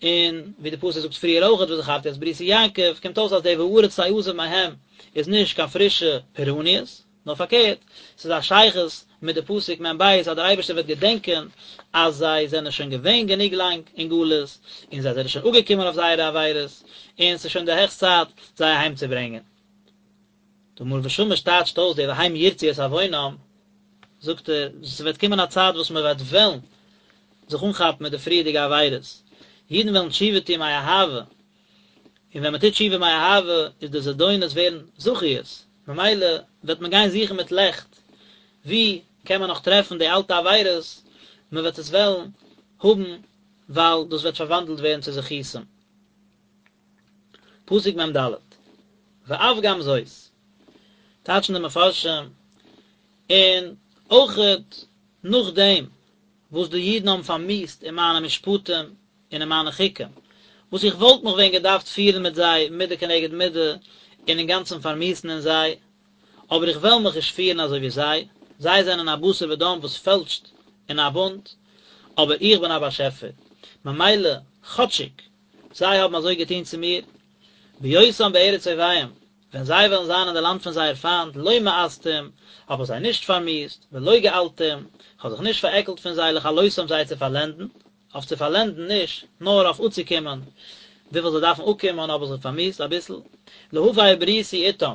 און ווי די פסוק זאגט פריער אויכעט וזכרתי את בריתי יעקב, קומט אויס אז די והארץ תעזב מהם איז נישט קיין פרישע פורעניות, נאר פארקערט, ס'איז א שייכות מיט די פסוק מ"ב אז דער אייבערשטער וועט געדענקען אז זיי זענען שוין געווען גענוג לאנג אין גלות, און זיי זענען שוין אפגעקומען אויף זייערע עבירות, און ס'איז שוין די העכסט צייט זיי אהיימצוברענגען. דער מאור ושמש טייטשט אויס די והם ירצו את עוונם, זאגט ער, ס'וועט קומען א צייט וואס מ'וועט וועלן זיך אנכאפן מיט די פריערדיגע עבירות, אידן וועלן תשובה טון מאהבה, און ווען מ'טוט תשובה מאהבה איז די זדונות ווערן זכיות, ממילא וועט מען גיין זוכן מיט לעכט ווי קען מען נאך טרעפן די אלטע עבירות, מ'וועט עס וועלן האבן ווייל דאס וועט פארוואנדלט ווערן צו זכותים. פסוק מ"ד, ואף גם זאת, טייטשן די מפרשים, און אויכעט נאכדעם וואס די אידן האבן פארמיאוסט אין מיינע משפטים און אין מיינע חוקים, וואס איך וואלט מיך ווען געדארפט פירן מיט זיי מידה כנגד מידה און אינגאנצן פארמיאוסן אין זיי, אבער איך וועל מיך נישט פירן אזוי ווי זיי, זיי זענען א בשר ודם וואס פעלשט אין א בונד, אבער איך בין א באשעפער, ממילא כאטשיג זיי האבן אזוי געטון צו מיר, בהיותם בארץ אויביהם, ווען זיי וועלן זיין אין די לאנד פון זייער פיינט, לא מאסתים, האב איך זיי נישט פארמיאוסט, ולא געלתים, איך האב זיך נישט פארעקלט פון זיי לכלותם זיי צו פארלענדן, אויף צו פארלענדן נישט, נאר אויף אפצוקומען וויפיל זיי דארפן אפקומען האב איך זיי פארמיאוסט אביסל, להפר בריתי איתם,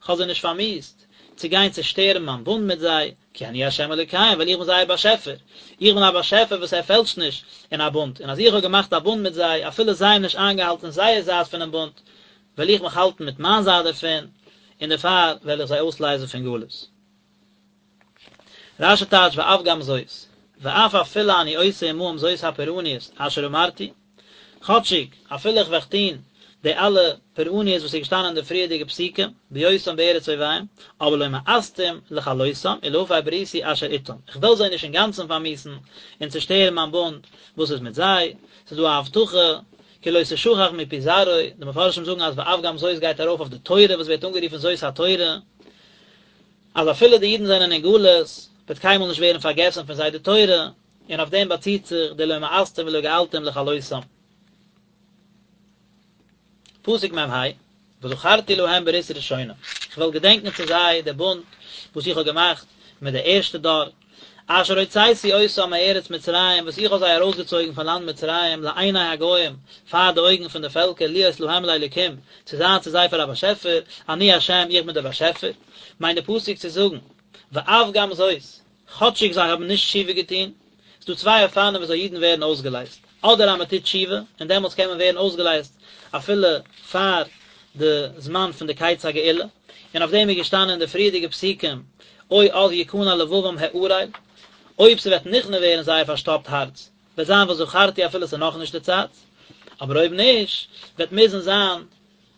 כ'האב זיי נישט פארמיאוסט, צו גיין צעשטערן מיין בונד מיט זיי, כי אני ה' אלוקיהם, ווייל איך בין זייער באשעפער, איך בין א באשעפער וואס ער פעלשט נישט אין א בונד, און אז איך האב געמאכט א בונד מיט זיי, אפילו זיי האבן נישט איינגעהאלטן זייער זייט פונעם בונד, וועל איך מיך האלטן מיט מיין זייט דערפון, און דערפאר וועל איך זיי אויסלייזן פון גלות. רש"י טייטשט ואף גם זאת, ואף אפילו אני עושה עמהם זאת הפורעניות אשר אמרתי, כאטשיג אפילו איך וועל טון די אלע פורעניות וואס איז געשטאנען אין די פריערדיגע פסוקים, בהיותם בארץ אויביהם, אבער לא מאסתים לכלותם ולהפר בריתי אשר איתם, איך וועל זיי נישט אינגאנצן פארמיאוסן און צושטערן מיין בונד וואס איז מיט זיי, ס'איז דא א הבטחה כי לא תשכח מפי זרעו, די מפרשים זאגן אז ואף גם זאת גייט ארויף אויף די תורה וואס ווערט אנגערופן זאת התורה, אז אפילו די אידן זענען אין גלות, וועט קיינמאל נישט ווערן פארגעסן פון זיי די תורה, און אויף דעם באציט זיך די לא מאסתים ולא געלתים לכלותם. פסוק מ"ה, וזכרתי להם ברית ראשונים, איך וועל געדענקען צו זיי די בונד וואס איך האב געמאכט מיט די ערשטע דור, אשר הוצאתי אותם מארץ מצרים, וואס איך האב זיי ארויסגעצויגן פון לאנד מצרים, לעיני הגוים, פאר די אויגן פון די פעלקער, להיות להם לאלוקים, צו זיין צו זיי פאר א באשעפער, אני ה', איך בין דער באשעפער. מיינט די פסוק צו זאגן, ואף גם זאת, כאטשיג זיי האבן נישט תשובה געטון, ס'דא צוויי אופנים וויאזוי אידן ווערן אויסגעלייזט, אדער אז מען טוט תשובה, און דעמאלטס קען מען ווערן אויסגעלייזט אפילו פאר די זמן פון די קץ הגאולה, און אויף דעם איז געשטאנען אין די פריערדיגע פסוקים, או אז יכנע לבבם הערל, אויב ס'וועט נכנע ווערן זייער פארשטאפט הארץ, וועט זיין וזכרתי אפילו ס'איז נאכנישט די צייט, אבער אויב נישט, וועט מוזן זיין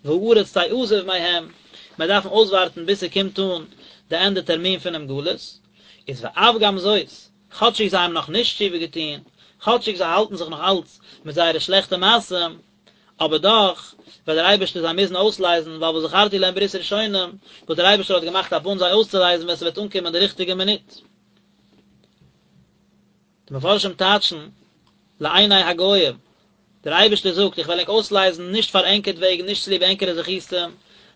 והארץ תעזוב מהם, מיר דארפן אויסווארטן ביז ס'קומט אן די ענדע טערמין פונעם גלות, איז ואף גם זאת, כאטשיג זיי האבן נאך נישט תשובה געטון, כאטשיג זיי האלטן זיך נאך אלץ מיט זייערע שלעכטע מעשים, אבער דאך וועט דער אייבערשטער זיי מוזן אויסלייזן, ווייל וזכרתי להם ברית ראשונים, וואס דער אייבערשטער האט געמאכט א בונד זיי אויסצולייזן ווען ס'וועט אנקומען די ריכטיגע מינוט. די מפרשים טייטשן לעיני הגוים, דער אייבערשטער זאגט, איך וועל ענק אויסלייזן נישט פאר ענקערט וועגן, נישט צוליב ענקערע זכותים,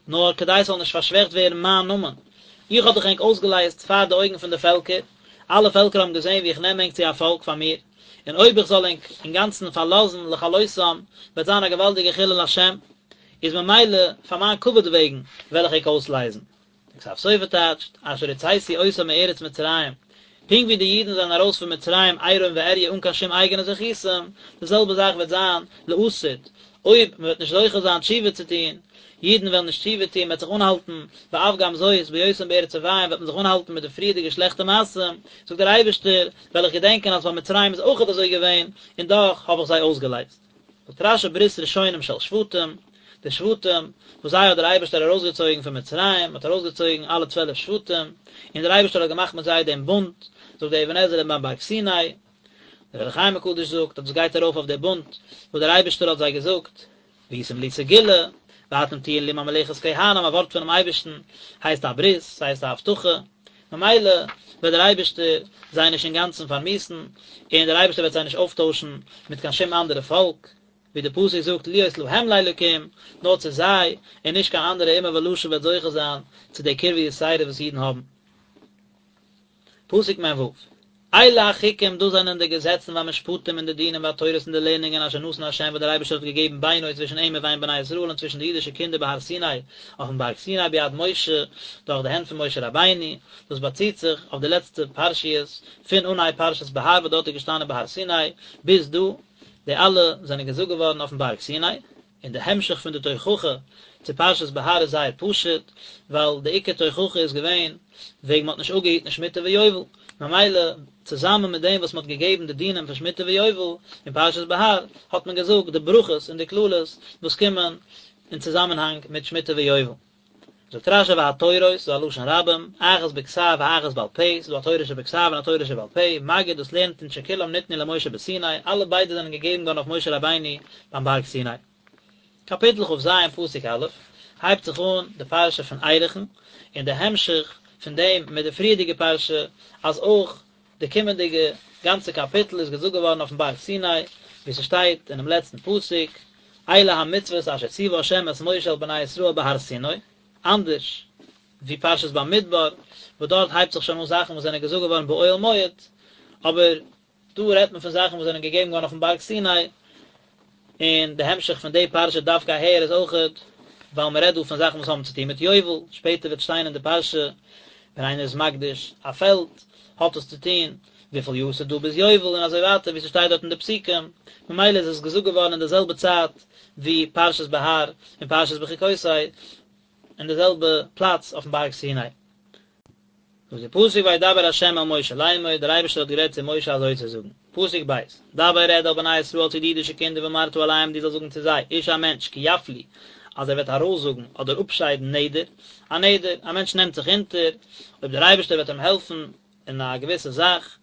נאר כדי ס'זאל נישט פארשוועכט ווערן מיין נאמען. איך האב דאך ענק אויסגעלייזט פאר די אויגן פון די פעלקער, אלע פעלקער האבן געזען ווי איך נעם ענק צו א פאלק פאר מיר, און אויב איך זאל ענק אינגאנצן פארלאזן לכלותם, וועט זיין א געוואלדיגע חילול השם, איז ממילא פאר מיין כבוד וועגן וועל איך ענק אויסלייזן. דער כתב סופר טייטשט, אשר הוצאתי אותם מארץ מצרים, פונקט ווי די אידן זענען ארויס פון מצרים עירום ועריה אן קיין שום אייגענע זכותים, די זעלבע זאך וועט זיין לעתיד, אויב מען וועט נישט זוכה זיין תשובה צו טון, אידן וועלן נישט תשובה טון, מען וועט זיך אנהאלטן, ואף גם זאת, בהיותם בארץ אויביהם וועט מען זיך אנהאלטן מיט די פריערדיגע שלעכטע מעשים, זאגט דער אייבערשטער, וועל איך געדענקען אז ביי מצרים איז אויכעט אזוי געווען, און דאך האב איך זיי אויסגעלייזט. זאגט רש"י ברית ראשונים של שבטים, די שבטים וואס זיי האט דער אייבערשטער ארויסגעצויגן פון מצרים, האט ארויסגעצויגן אלע 12 שבטים, און דער אייבערשטער האט געמאכט מיט זיי דעם בונד, זאגט דער אבן עזרא ביים בארג סיני. דער אור החיים הקדוש זאגט אז דאס גייט ארויף אויף דער בונד וואס דער אייבערשטער האט זיי געזאגט, והייתם לי סגולה, ואתם תהיון לי ממלכת כהנים, א ווארט פונעם אייבערשטן הייסט א ברית, ס'הייסט א הבטחה, ממילא וועט דער אייבערשטער זיי נישט אינגאנצן פארמיאוסן, און דער אייבערשטער וועט זיי נישט אויפטוישן מיט קיין שום אנדערע פאלק, ווי דער פסוק זאגט להיות להם לאלקים, נאר צו זיי, און נישט קיין אנדערע אומה ולשון וועט זוכה זיין צו די קרבה יתירה וואס אידן האבן. פסוק מ ו, אלה החוקים דאס זענען די געזעצן והמשפטים און די דינים והתורות און די לערנונגען אשר נתן ה' וואס דער אייבערשטער האט געגעבן בינו צווישן אים ובין בני ישראל און צווישן די אידישע קינדער בהר סיני אויפן בארג סיני ביד משה דורך די הענט פון משה רבינו, דאס באציט זיך אויף די לעצטע פרשיות פון אנהייב פרשת בהר וואס דארט איז געשטאנען בהר סיני ביז דא, די אלע זענען געזאגט געווארן אויפן בארג סיני. און די המשך פון די תוכחה צו פרשת בהר איז זייער פשוט, ווייל די עיקר תוכחה איז געווען וועגן מ'האט נישט אפגעהיטן שמיטה ויובל, ממילא צוזאמען מיט דעם וואס מ'האט געגעבן די דינים פון שמיטה ויובל אין פרשת בהר, האט מען געזאגט די ברכות און די קללות וואס קומען אין צוזאמענהאנג מיט שמיטה ויובל. זאגט רשי והתורות, ס'איז א לשון רבים, אחת בכתב ואחת בעל פה, ס'איז דא א תורה שבכתב און א תורה שבעל פה, מגיד דאס לערנט אונז שכולם ניתנו למשה בסיני, אלע ביידע זענען געגעבן געווארן אויף משה רבינו ביים בארג סיני. קאפיטל כ ז פסוק א', הייבט זיך אן די פרשה פון ערכין, און די המשך פון דעם מיט די פריערדיגע פרשה, אז אויך די קומענדיגע גאנצע קאפיטל איז געזאגט געווארן אויפן בארג סיני, ווי ס'שטייט אינעם לעצטן פסוק, אלה המצוות אשר ציוה ה' את משה אל בני ישראל בהר סיני, אנדערש ווי פרשת במדבר, וואס דארט הייבט זיך שוין אן זאכן וואס זענען געזאגט געווארן באוהל מועד, אבער דא רעדט מען פון זאכן וואס זענען געגעבן געווארן אויפן בארג סיני, און די המשך פון די פרשה דווקא אהער איז אויכעט ווייל מען רעדט דא פון זאכן וואס האבן צוטון מיט יובל, שפעטער וועט שטיין אין די פרשה ווען איינער איז מקדיש א פעלד האט עס צוטון וויפיל יאר ס'איז דא ביז יובל און אזוי ווייטער ווי ס'שטייט דארט אין די פסוקים, ממילא איז עס געזאגט געווארן אין די זעלבע צייט ווי פרשת בהר און פרשת בחוקותי אין די זעלבע פלאץ אויפן בארג סיני. זאגט די פסוק וידבר ה' אל משה לאמור, דער אייבערשטער האט גערעדט צו משה אזוי צו זאגן, פסוק ב', דבר רעד אל בני ישראל צו די אידישע קינדער ואמרת אליהם דו זאלסט זאגן צו זיי, איש א מענטש, כי יפליא, אז ער וועט ארויסזאגן אדער אפשיידן נדר, א נדר, א מענטש נעמט זיך אונטער, אויב דער אייבערשטער וועט אים העלפן אין א געוויסע זאך,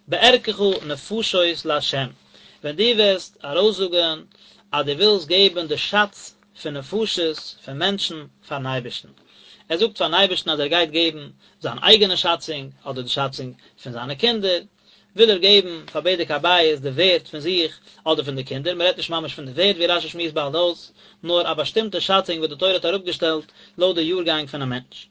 בערכך נפשות לה', ווען דו וועסט ארויסזאגן אז דו ווילסט געבן די שאץ פון נפשות, פון מענטשן, פארן אייבערשטן. ער זאגט פארן אייבערשטן אז ער גייט געבן זיין אייגענע שאצונג, אדער די שאצונג פון זיינע קינדער, וויל ער געבן פאר בדק הבית די ווערט פון זיך אדער פון די קינדער, מען רעדט נישט ממש פון די ווערט ווי רשי שמועסט באלד אויס, נאר א באשטימטע שאצונג וואס די תורה האט אראפגעשטעלט לויט די יארגאנג פונעם מענטש.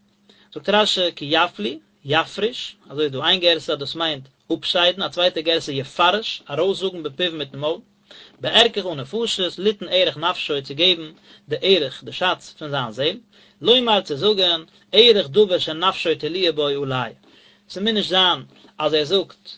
זאגט רשי כי יפליא, יפריש, אזוי איז דא איין גירסא אז דאס מיינט אפשיידן, א צווייטע גירסא יפרש, ארויסזאגן בפיו מיטן מויל, בערכך נפשות, ליתן ערך נפשו צו געבן די ערך, די שאץ, פון זיין זעל, לומר צו זאגן, ערך דבר שנפשו תלויה בו עלי, ס'מוז נישט זיין אז ער זאגט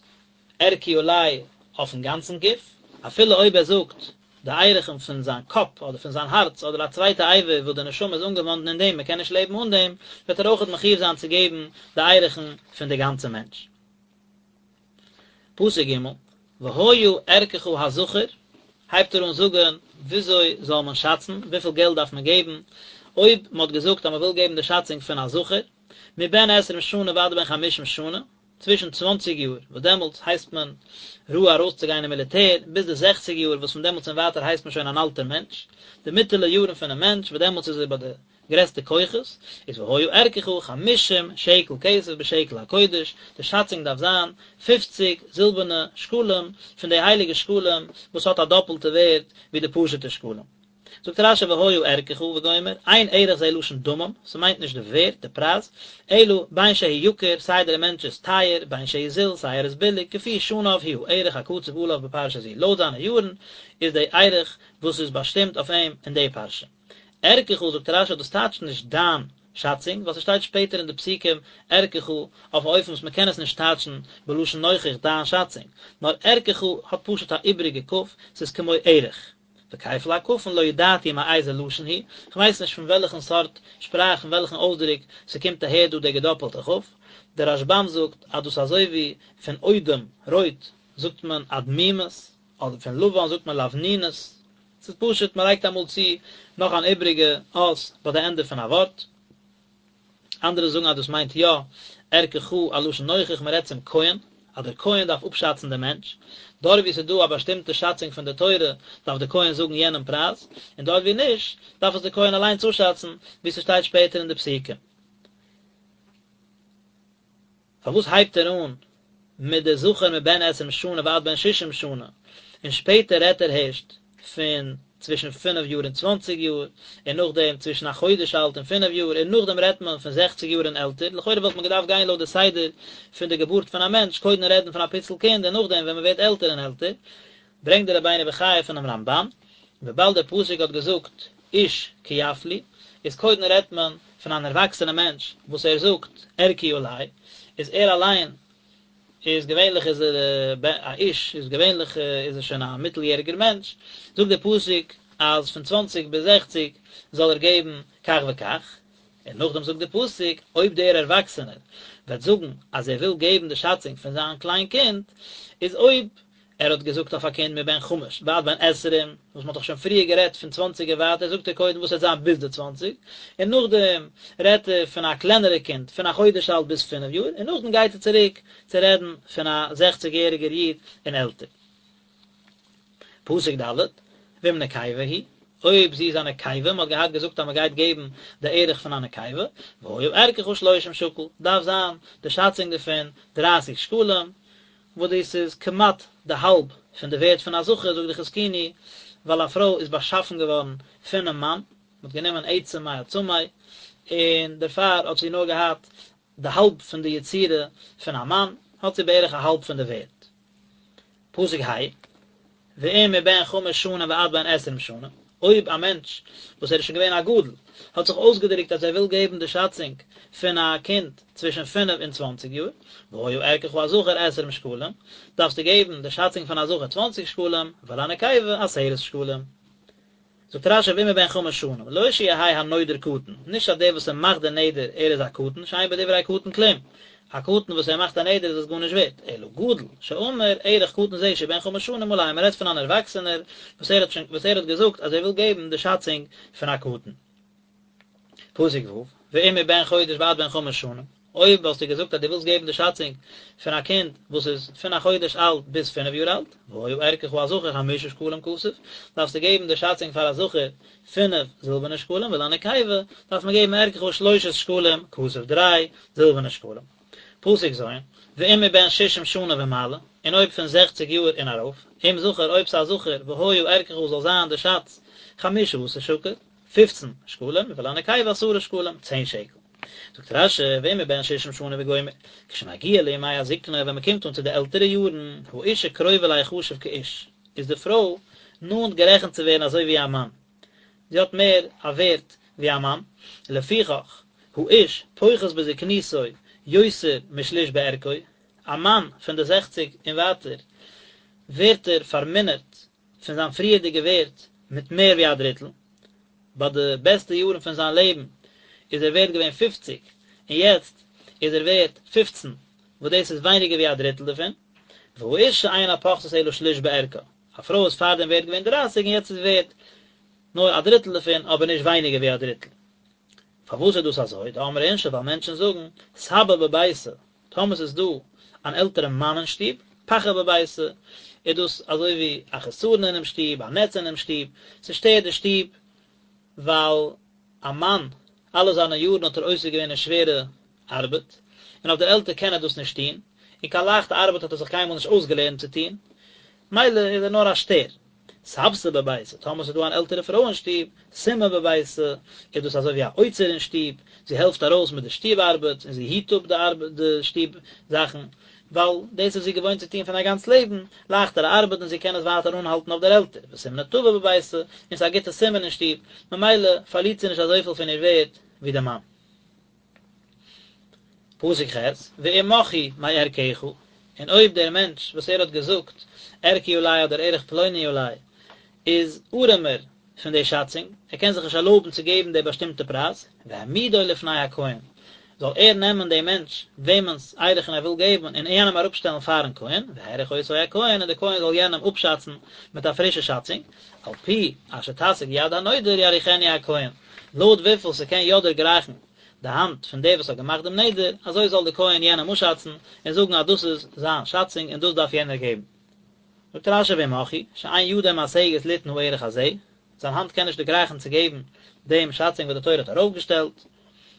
ערכי עלי אויפן גאנצן גוף, אפילו אויב ער זאגט די ערכין פון זיין קאפ אדער פון זיין הארץ אדער א צווייטע אבר וואס די נשמה איז אנגעוואנדן אין דעם, מען קען נישט לעבן אן דעם, וועט ער אויכעט מחויב זיין צו געבן די ערכין פון די גאנצע מענטש. פסוק ג', והיה ערכך הזכר, הייבט ער אן זאגן וויאזוי זאל מען שאצן, וויפיל געלט דארף מען געבן, אויב מען האט געזאגט אז מען וויל געבן די שאצונג פון א זכר, מבן עשרים שנה ועד בן חמישים שנה, צווישן צוואנציג יאר, וואס דעמאלטס הייסט מען ראוי ארויסצוגיין אין מיליטער, ביז די זעכציג יאר, וואס פון דעמאלטס און ווייטער הייסט מען שוין אן אלטער מענטש, די מיטעלע יארן פונעם מענטש, וואס דעמאלטס איז ער ביי די גרעסטע כוחות, איז והיה ערכך חמישים שקל כסף בשקל הקודש, די שאצונג דארף זיין פופציג זילבערנע שקלים, פון די הייליגע שקלים וואס האט א דאפלטע ווערד ווי די פשוטע שקלים. זאגט רשי והיה ערכך וגומר, אין ערך זה לשון דמים, ס'מיינט נישט די ווערד, די פרייז, אלא בין שהוא יקר, סיי דער מענטש איז טייער, בין שהוא זול, סיי ער איז ביליג, כפי שניו הוא הערך הקצוב עליו בפרשה זו, לויט זיינע יארן איז די ערך וואס איז באשטימט אויף אים אין די פרשה. ערכך זאגט רשי דאס טייטשט נישט דיין שאצונג, ווייל ס'שטייט שפעטער אין די פסוקים ערכך אויף א אופן וואס מ'קען עס נישט טייטשן בלשון נוכח דיין שאצונג, נאר ערכך האט פשוט א איבעריגע כ', ס'איז כמו ערך. וכפל הכפין לא ידעתי מאיזה לשון הוא, כ'ווייס נישט פון וועלכן סארט שפראך פון וועלכן אויסדרוק ס'קומט אהער דא דער געדאפעלטע כ', דער רשבם זאגט אז דאס אזוי ווי פון אודם, רויט, זאגט מען אדמימית, אדער פון לבן זאגט מען לבנונית, ס'איז פשוט מ'לייגט אמאל צו נאך אן איבריגע אות ביי די ענדע פון א ווארט. אנדערע זאגן אז דאס מיינט יא ערכך א לשון נוכח מען רעדט צום כהן. אז דער כהן דארף אפשאצן דעם מענטש, דארט וואו ס'איז דא א באשטימטע שאצונג פון די תורה דארף דער כהן זאגן יענעם פרייז, און דארט וואו נישט דארף עס דער כהן אליינס אפשאצן, ווי ס'שטייט שפעטער אין די פסוקים. פארוואס הייבט ער אן מיט די זכר מבן עשרים שנה ועד בן ששים שנה, און שפעטער רעדט ער הערשט פון צווישן פינף יאר און צוואנציג יאר, און נאכדעם צווישן א חודש אלט און פינף יאר, און נאכדעם רעדט מען פון זעכציג יאר און עלטער, לכאורה וואלט מען געדארפט גיין לויט די סדר פון די געבורט פון א מענטש, קודם רעדן פון א פיצל קינד און נאכדעם ווען מען ווערט עלטער און עלטער, ברענגט דער רבינו בחיי פונעם רמב"ן, וויבאלד דער פסוק האט געזאגט איש כי יפליא, איז קודם רעדט מען פון אן ערוואקסענע מענטש וואס ער זאגט ערכי עלי, איז ער אליין איז געווענליך איז ער א איש איז געווענליך איז ער שוין א מיטל יעריגער מענטש, זאגט דער פסוק אז פון צוואנציג ביז זעכציג זאל ער געבן כך וכך, און נאכדעם זאגט דער פסוק אויב דער ערוואקסענער וועט זאגן אז ער וויל געבן די שאצונג פון זיין קליין קינד, איז אויב ער האט געזאגט אויף א קינד מבן חמש ועד בן עשרים, וואס מ'האט דאך שוין פריער גערעדט פון צוואנציג און ווייטער, זאגט ער קודם וואס וועט זיין ביז די צוואנציג, און נאכדעם רעדט ער פון א קלענערע קינד פון א חודש אלט ביז פינף יאר, און נאכדעם גייט ער צוריק צו רעדן פון א זעכציג יעריגער איד און עלטער. פסוק ד', ואם נקבה היא, אויב זי איז א נקבה, מ'האט געהאט געזאגט אז מ'גייט געבן די ערך פון א נקבה, והיה ערכך שלושים שקל, דארף זיין די שאצונג דערפון דרייסיג שקלים, וואס דאס איז כמעט די האלב פון די ווערד פון א זכר, זאגט די חזקוני, ווייל א פרוי איז באשאפן געווארן פונעם מאן, מען האט גענומען עצם מעצמי, און דערפאר האט זי נאר געהאט די האלב פון די יצירה פון א מאן, האט זי בערך א האלב פון די ווערד. פסוק ה', ואם מבן חמש שנים ועד בן עשרים שנה, אויב א מענטש וואס ער איז שוין געווען א גדול, האט זיך אויסגעדרוקט אז ער וויל געבן די שאצונג פון א קינד צווישן פינף און צוואנציג יאר, והיה ערכך הזכר עשרים שקלים, דארפסטו געבן די שאצונג פון א זכר צוואנציג שקלים, ולנקבה עשרת שקלים. זאגט רש"י ואם מבן חמש שנים, לא שיהא הנודר קטן, נישט אז דער וואס ער מאכט די נדר ער איז א קטן, שאין בדברי קטן כלום, א קטן וואס ער מאכט א נדר איז עס גארנישט ווערט, אלא גדול, שאמר ערך קטן זה שהוא בן חמש שנים עלי, מען רעדט פון אן ערוואקסענער וואס ער האט שוין וואס ער האט געזאגט אז ער וויל געבן די שאצונג פון א קטן. פסוק ו', ואם מבן חודש ועד בן חמש שנים, אויב האסטו געזאגט אז דו ווילסט געבן די שאצונג פון א קינד וואס איז פון א חודש אלט ביז פינף יאר אלט, והיה ערכך הזכר חמשה שקלים כסף, דארפסטו געבן די שאצונג פאר א זכר פינף זילבערנע שקלים, ולנקבה דארף מען געבן ערכך שלושת שקלים כסף, דריי זילבערנע שקלים. פסוק ז', ואם מבן ששים שנה ומעלה, און אויב פון זעכציג יאר און ארויף, אם זכר אויב ס'איז א זכר, והיה ערכך זאל זיין די שאץ חמשה עשר שקל, פופצן שקלים, ולנקבה עשרה שקלים, צען שקל. זאגט רש"י, ואם מבן ששים שנה וגומר, כשמגיע לימי הזקנה, ווען מ'קומט אן צו די עלטערע יארן, האישה קרובה ליחשב כאיש, איז די פרוי נאנט גערעכנט צו ווערן אזוי ווי א מאן, זי האט מער א ווערט ווי א מאן, לפיכך, האיש פוחת בזקנותו יותר משליש בערכו, א מאן פון די זעכציג און ווייטער ווערט ער פארמינערט פון זיין פריערדיגע ווערט מיט מער ווי א דריטל, ביי די בעסטע יארן פון זיין לעבן איז ער ווערט געווען פופציג, און יעצט איז ער ווערט פופצן, וואס דאס איז ווייניגער ווי א דריטל דערפון, והאישה אינה פוחתת אלא שליש בערכה, א פרוי איז פארדעם ווערט געווען דרייסיג און יעצט איז ווערט נאר א דריטל דערפון אבער נישט ווייניגער ווי א דריטל. פארוואס איז דאס אזוי? דאמרי אינשי ווייל מענטשן זאגן סבא בביתא, טאמער ס'איז דא אן עלטערע מאן אין שטוב, פחא בביתא, איז דאס אזוי ווי א חסרון אינעם שטוב, א נעץ אינעם שטוב, ס'שטערט די שטוב, ווייל א מאן, אלע זיינע יארן האט ער עוסק געווען אין שווערע ארבעט, און אויף דער עלטער קען ער דאס נישט טון, און קיין לייכטע ארבעט האט ער זיך קיינמאל נישט אויסגעלערנט צו טון, מילא איז ער נאר א שטער. סבתא בביתא, טאמער ס'איז דא אן עלטערע פרוי אין שטוב, סימא בביתא, איז דאס אזוי ווי א אוצר אין שטוב, זי העלפט ארויס מיט די שטוב ארבעט, און זי היט אפ די ארבעט די שטוב זאכן, ווייל דאס איז זי געוואוינט צו טון פון א גאנץ לעבן, לייכטערע ארבעט און זי קען עס ווייטער אנהאלטן אויף דער עלטער, וסימנא טבא בביתא, און ס'איז א גוטע סימן אין שטוב, ממילא פארלירט זי נישט אזויפיל פון איר ווערד ווי די מאן. פסוק ח', ואם מך הוא מערכך, און אויב דער מענטש וואס ער האט געזאגט ערכי עלי אדער ערך פלוני עלי איז ארעמער פון די שאצונג, ער קען זיך נישט ערלויבן צו געבן די באשטימטע פרייז, והעמידו לפני הכהן, זאל ער נעמען דעם מענטש וועמענס ערכין ער וויל געבן און יענעם אראפשטעלן פארן כהן, והעריך אותו הכהן, און דער כהן זאל יענעם אפשאצן מיט א פרישע שאצונג, על פי אשר תשיג יד הנודר יעריכנו הכהן, לויט וויפיל ס'קען יא דערגרייכן. די האנט פון דער וואס האט געמאכט דעם נדר, אזוי זאל דער כהן יענעם אפשאצן און זאגן אז דאס איז זיין שאצונג און דאס דארף יענער געבן. זאגט רשי ואם הכי, שאין ידו משגת ליתן הערך הזה, זיין האנט קען נישט דערגרייכן צו געבן דעם שאצונג וואס די תורה האט ארויפגעשטעלט,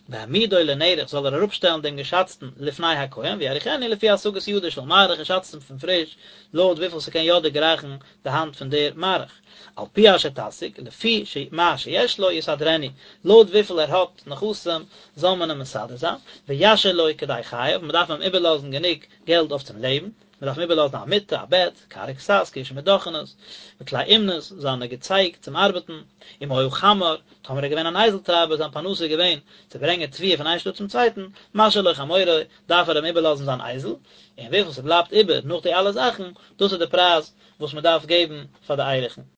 והעמידו לנערך זאל ער אראפשטעלן דעם געשאצטן לפני הכהן ויעריכנו לפי השגת ידו של מעריך און שאצט אים פון פריש לויט וויפיל ס'קען יא דערגרייכן די האנט פון דער מעריך, על פי אשר תשיג, לפי מה שיש לו יסדרנו, לויט וויפיל ער האט נכסים זאל מען אים מסדר זיין, וישאיר לו כדי חייו, מ'דארף אים איבערלאזן גענוג געלט אויף צום לעבן. מען דארף אים איבערלאזן א מיטה, א בעט, כר וכסת, כאשה מיט דאכענעס, וכלי אומנות, זיינע געצייג צום ארבעטן, אם היה חמר, טאמער ער איז געווען אן אייזל טרייבער, זיין פרנסה איז געווען צו ברענגען תבואה פון איין שטאט צום צווייטן, משאיר לו חמורו, דארף ער אים איבערלאזן זיין אייזל, און וויפיל ס'בלייבט איבער נאך די אלע זאכן, דאס איז די פרייז וואס מען דארף געבן פאר די ערכין.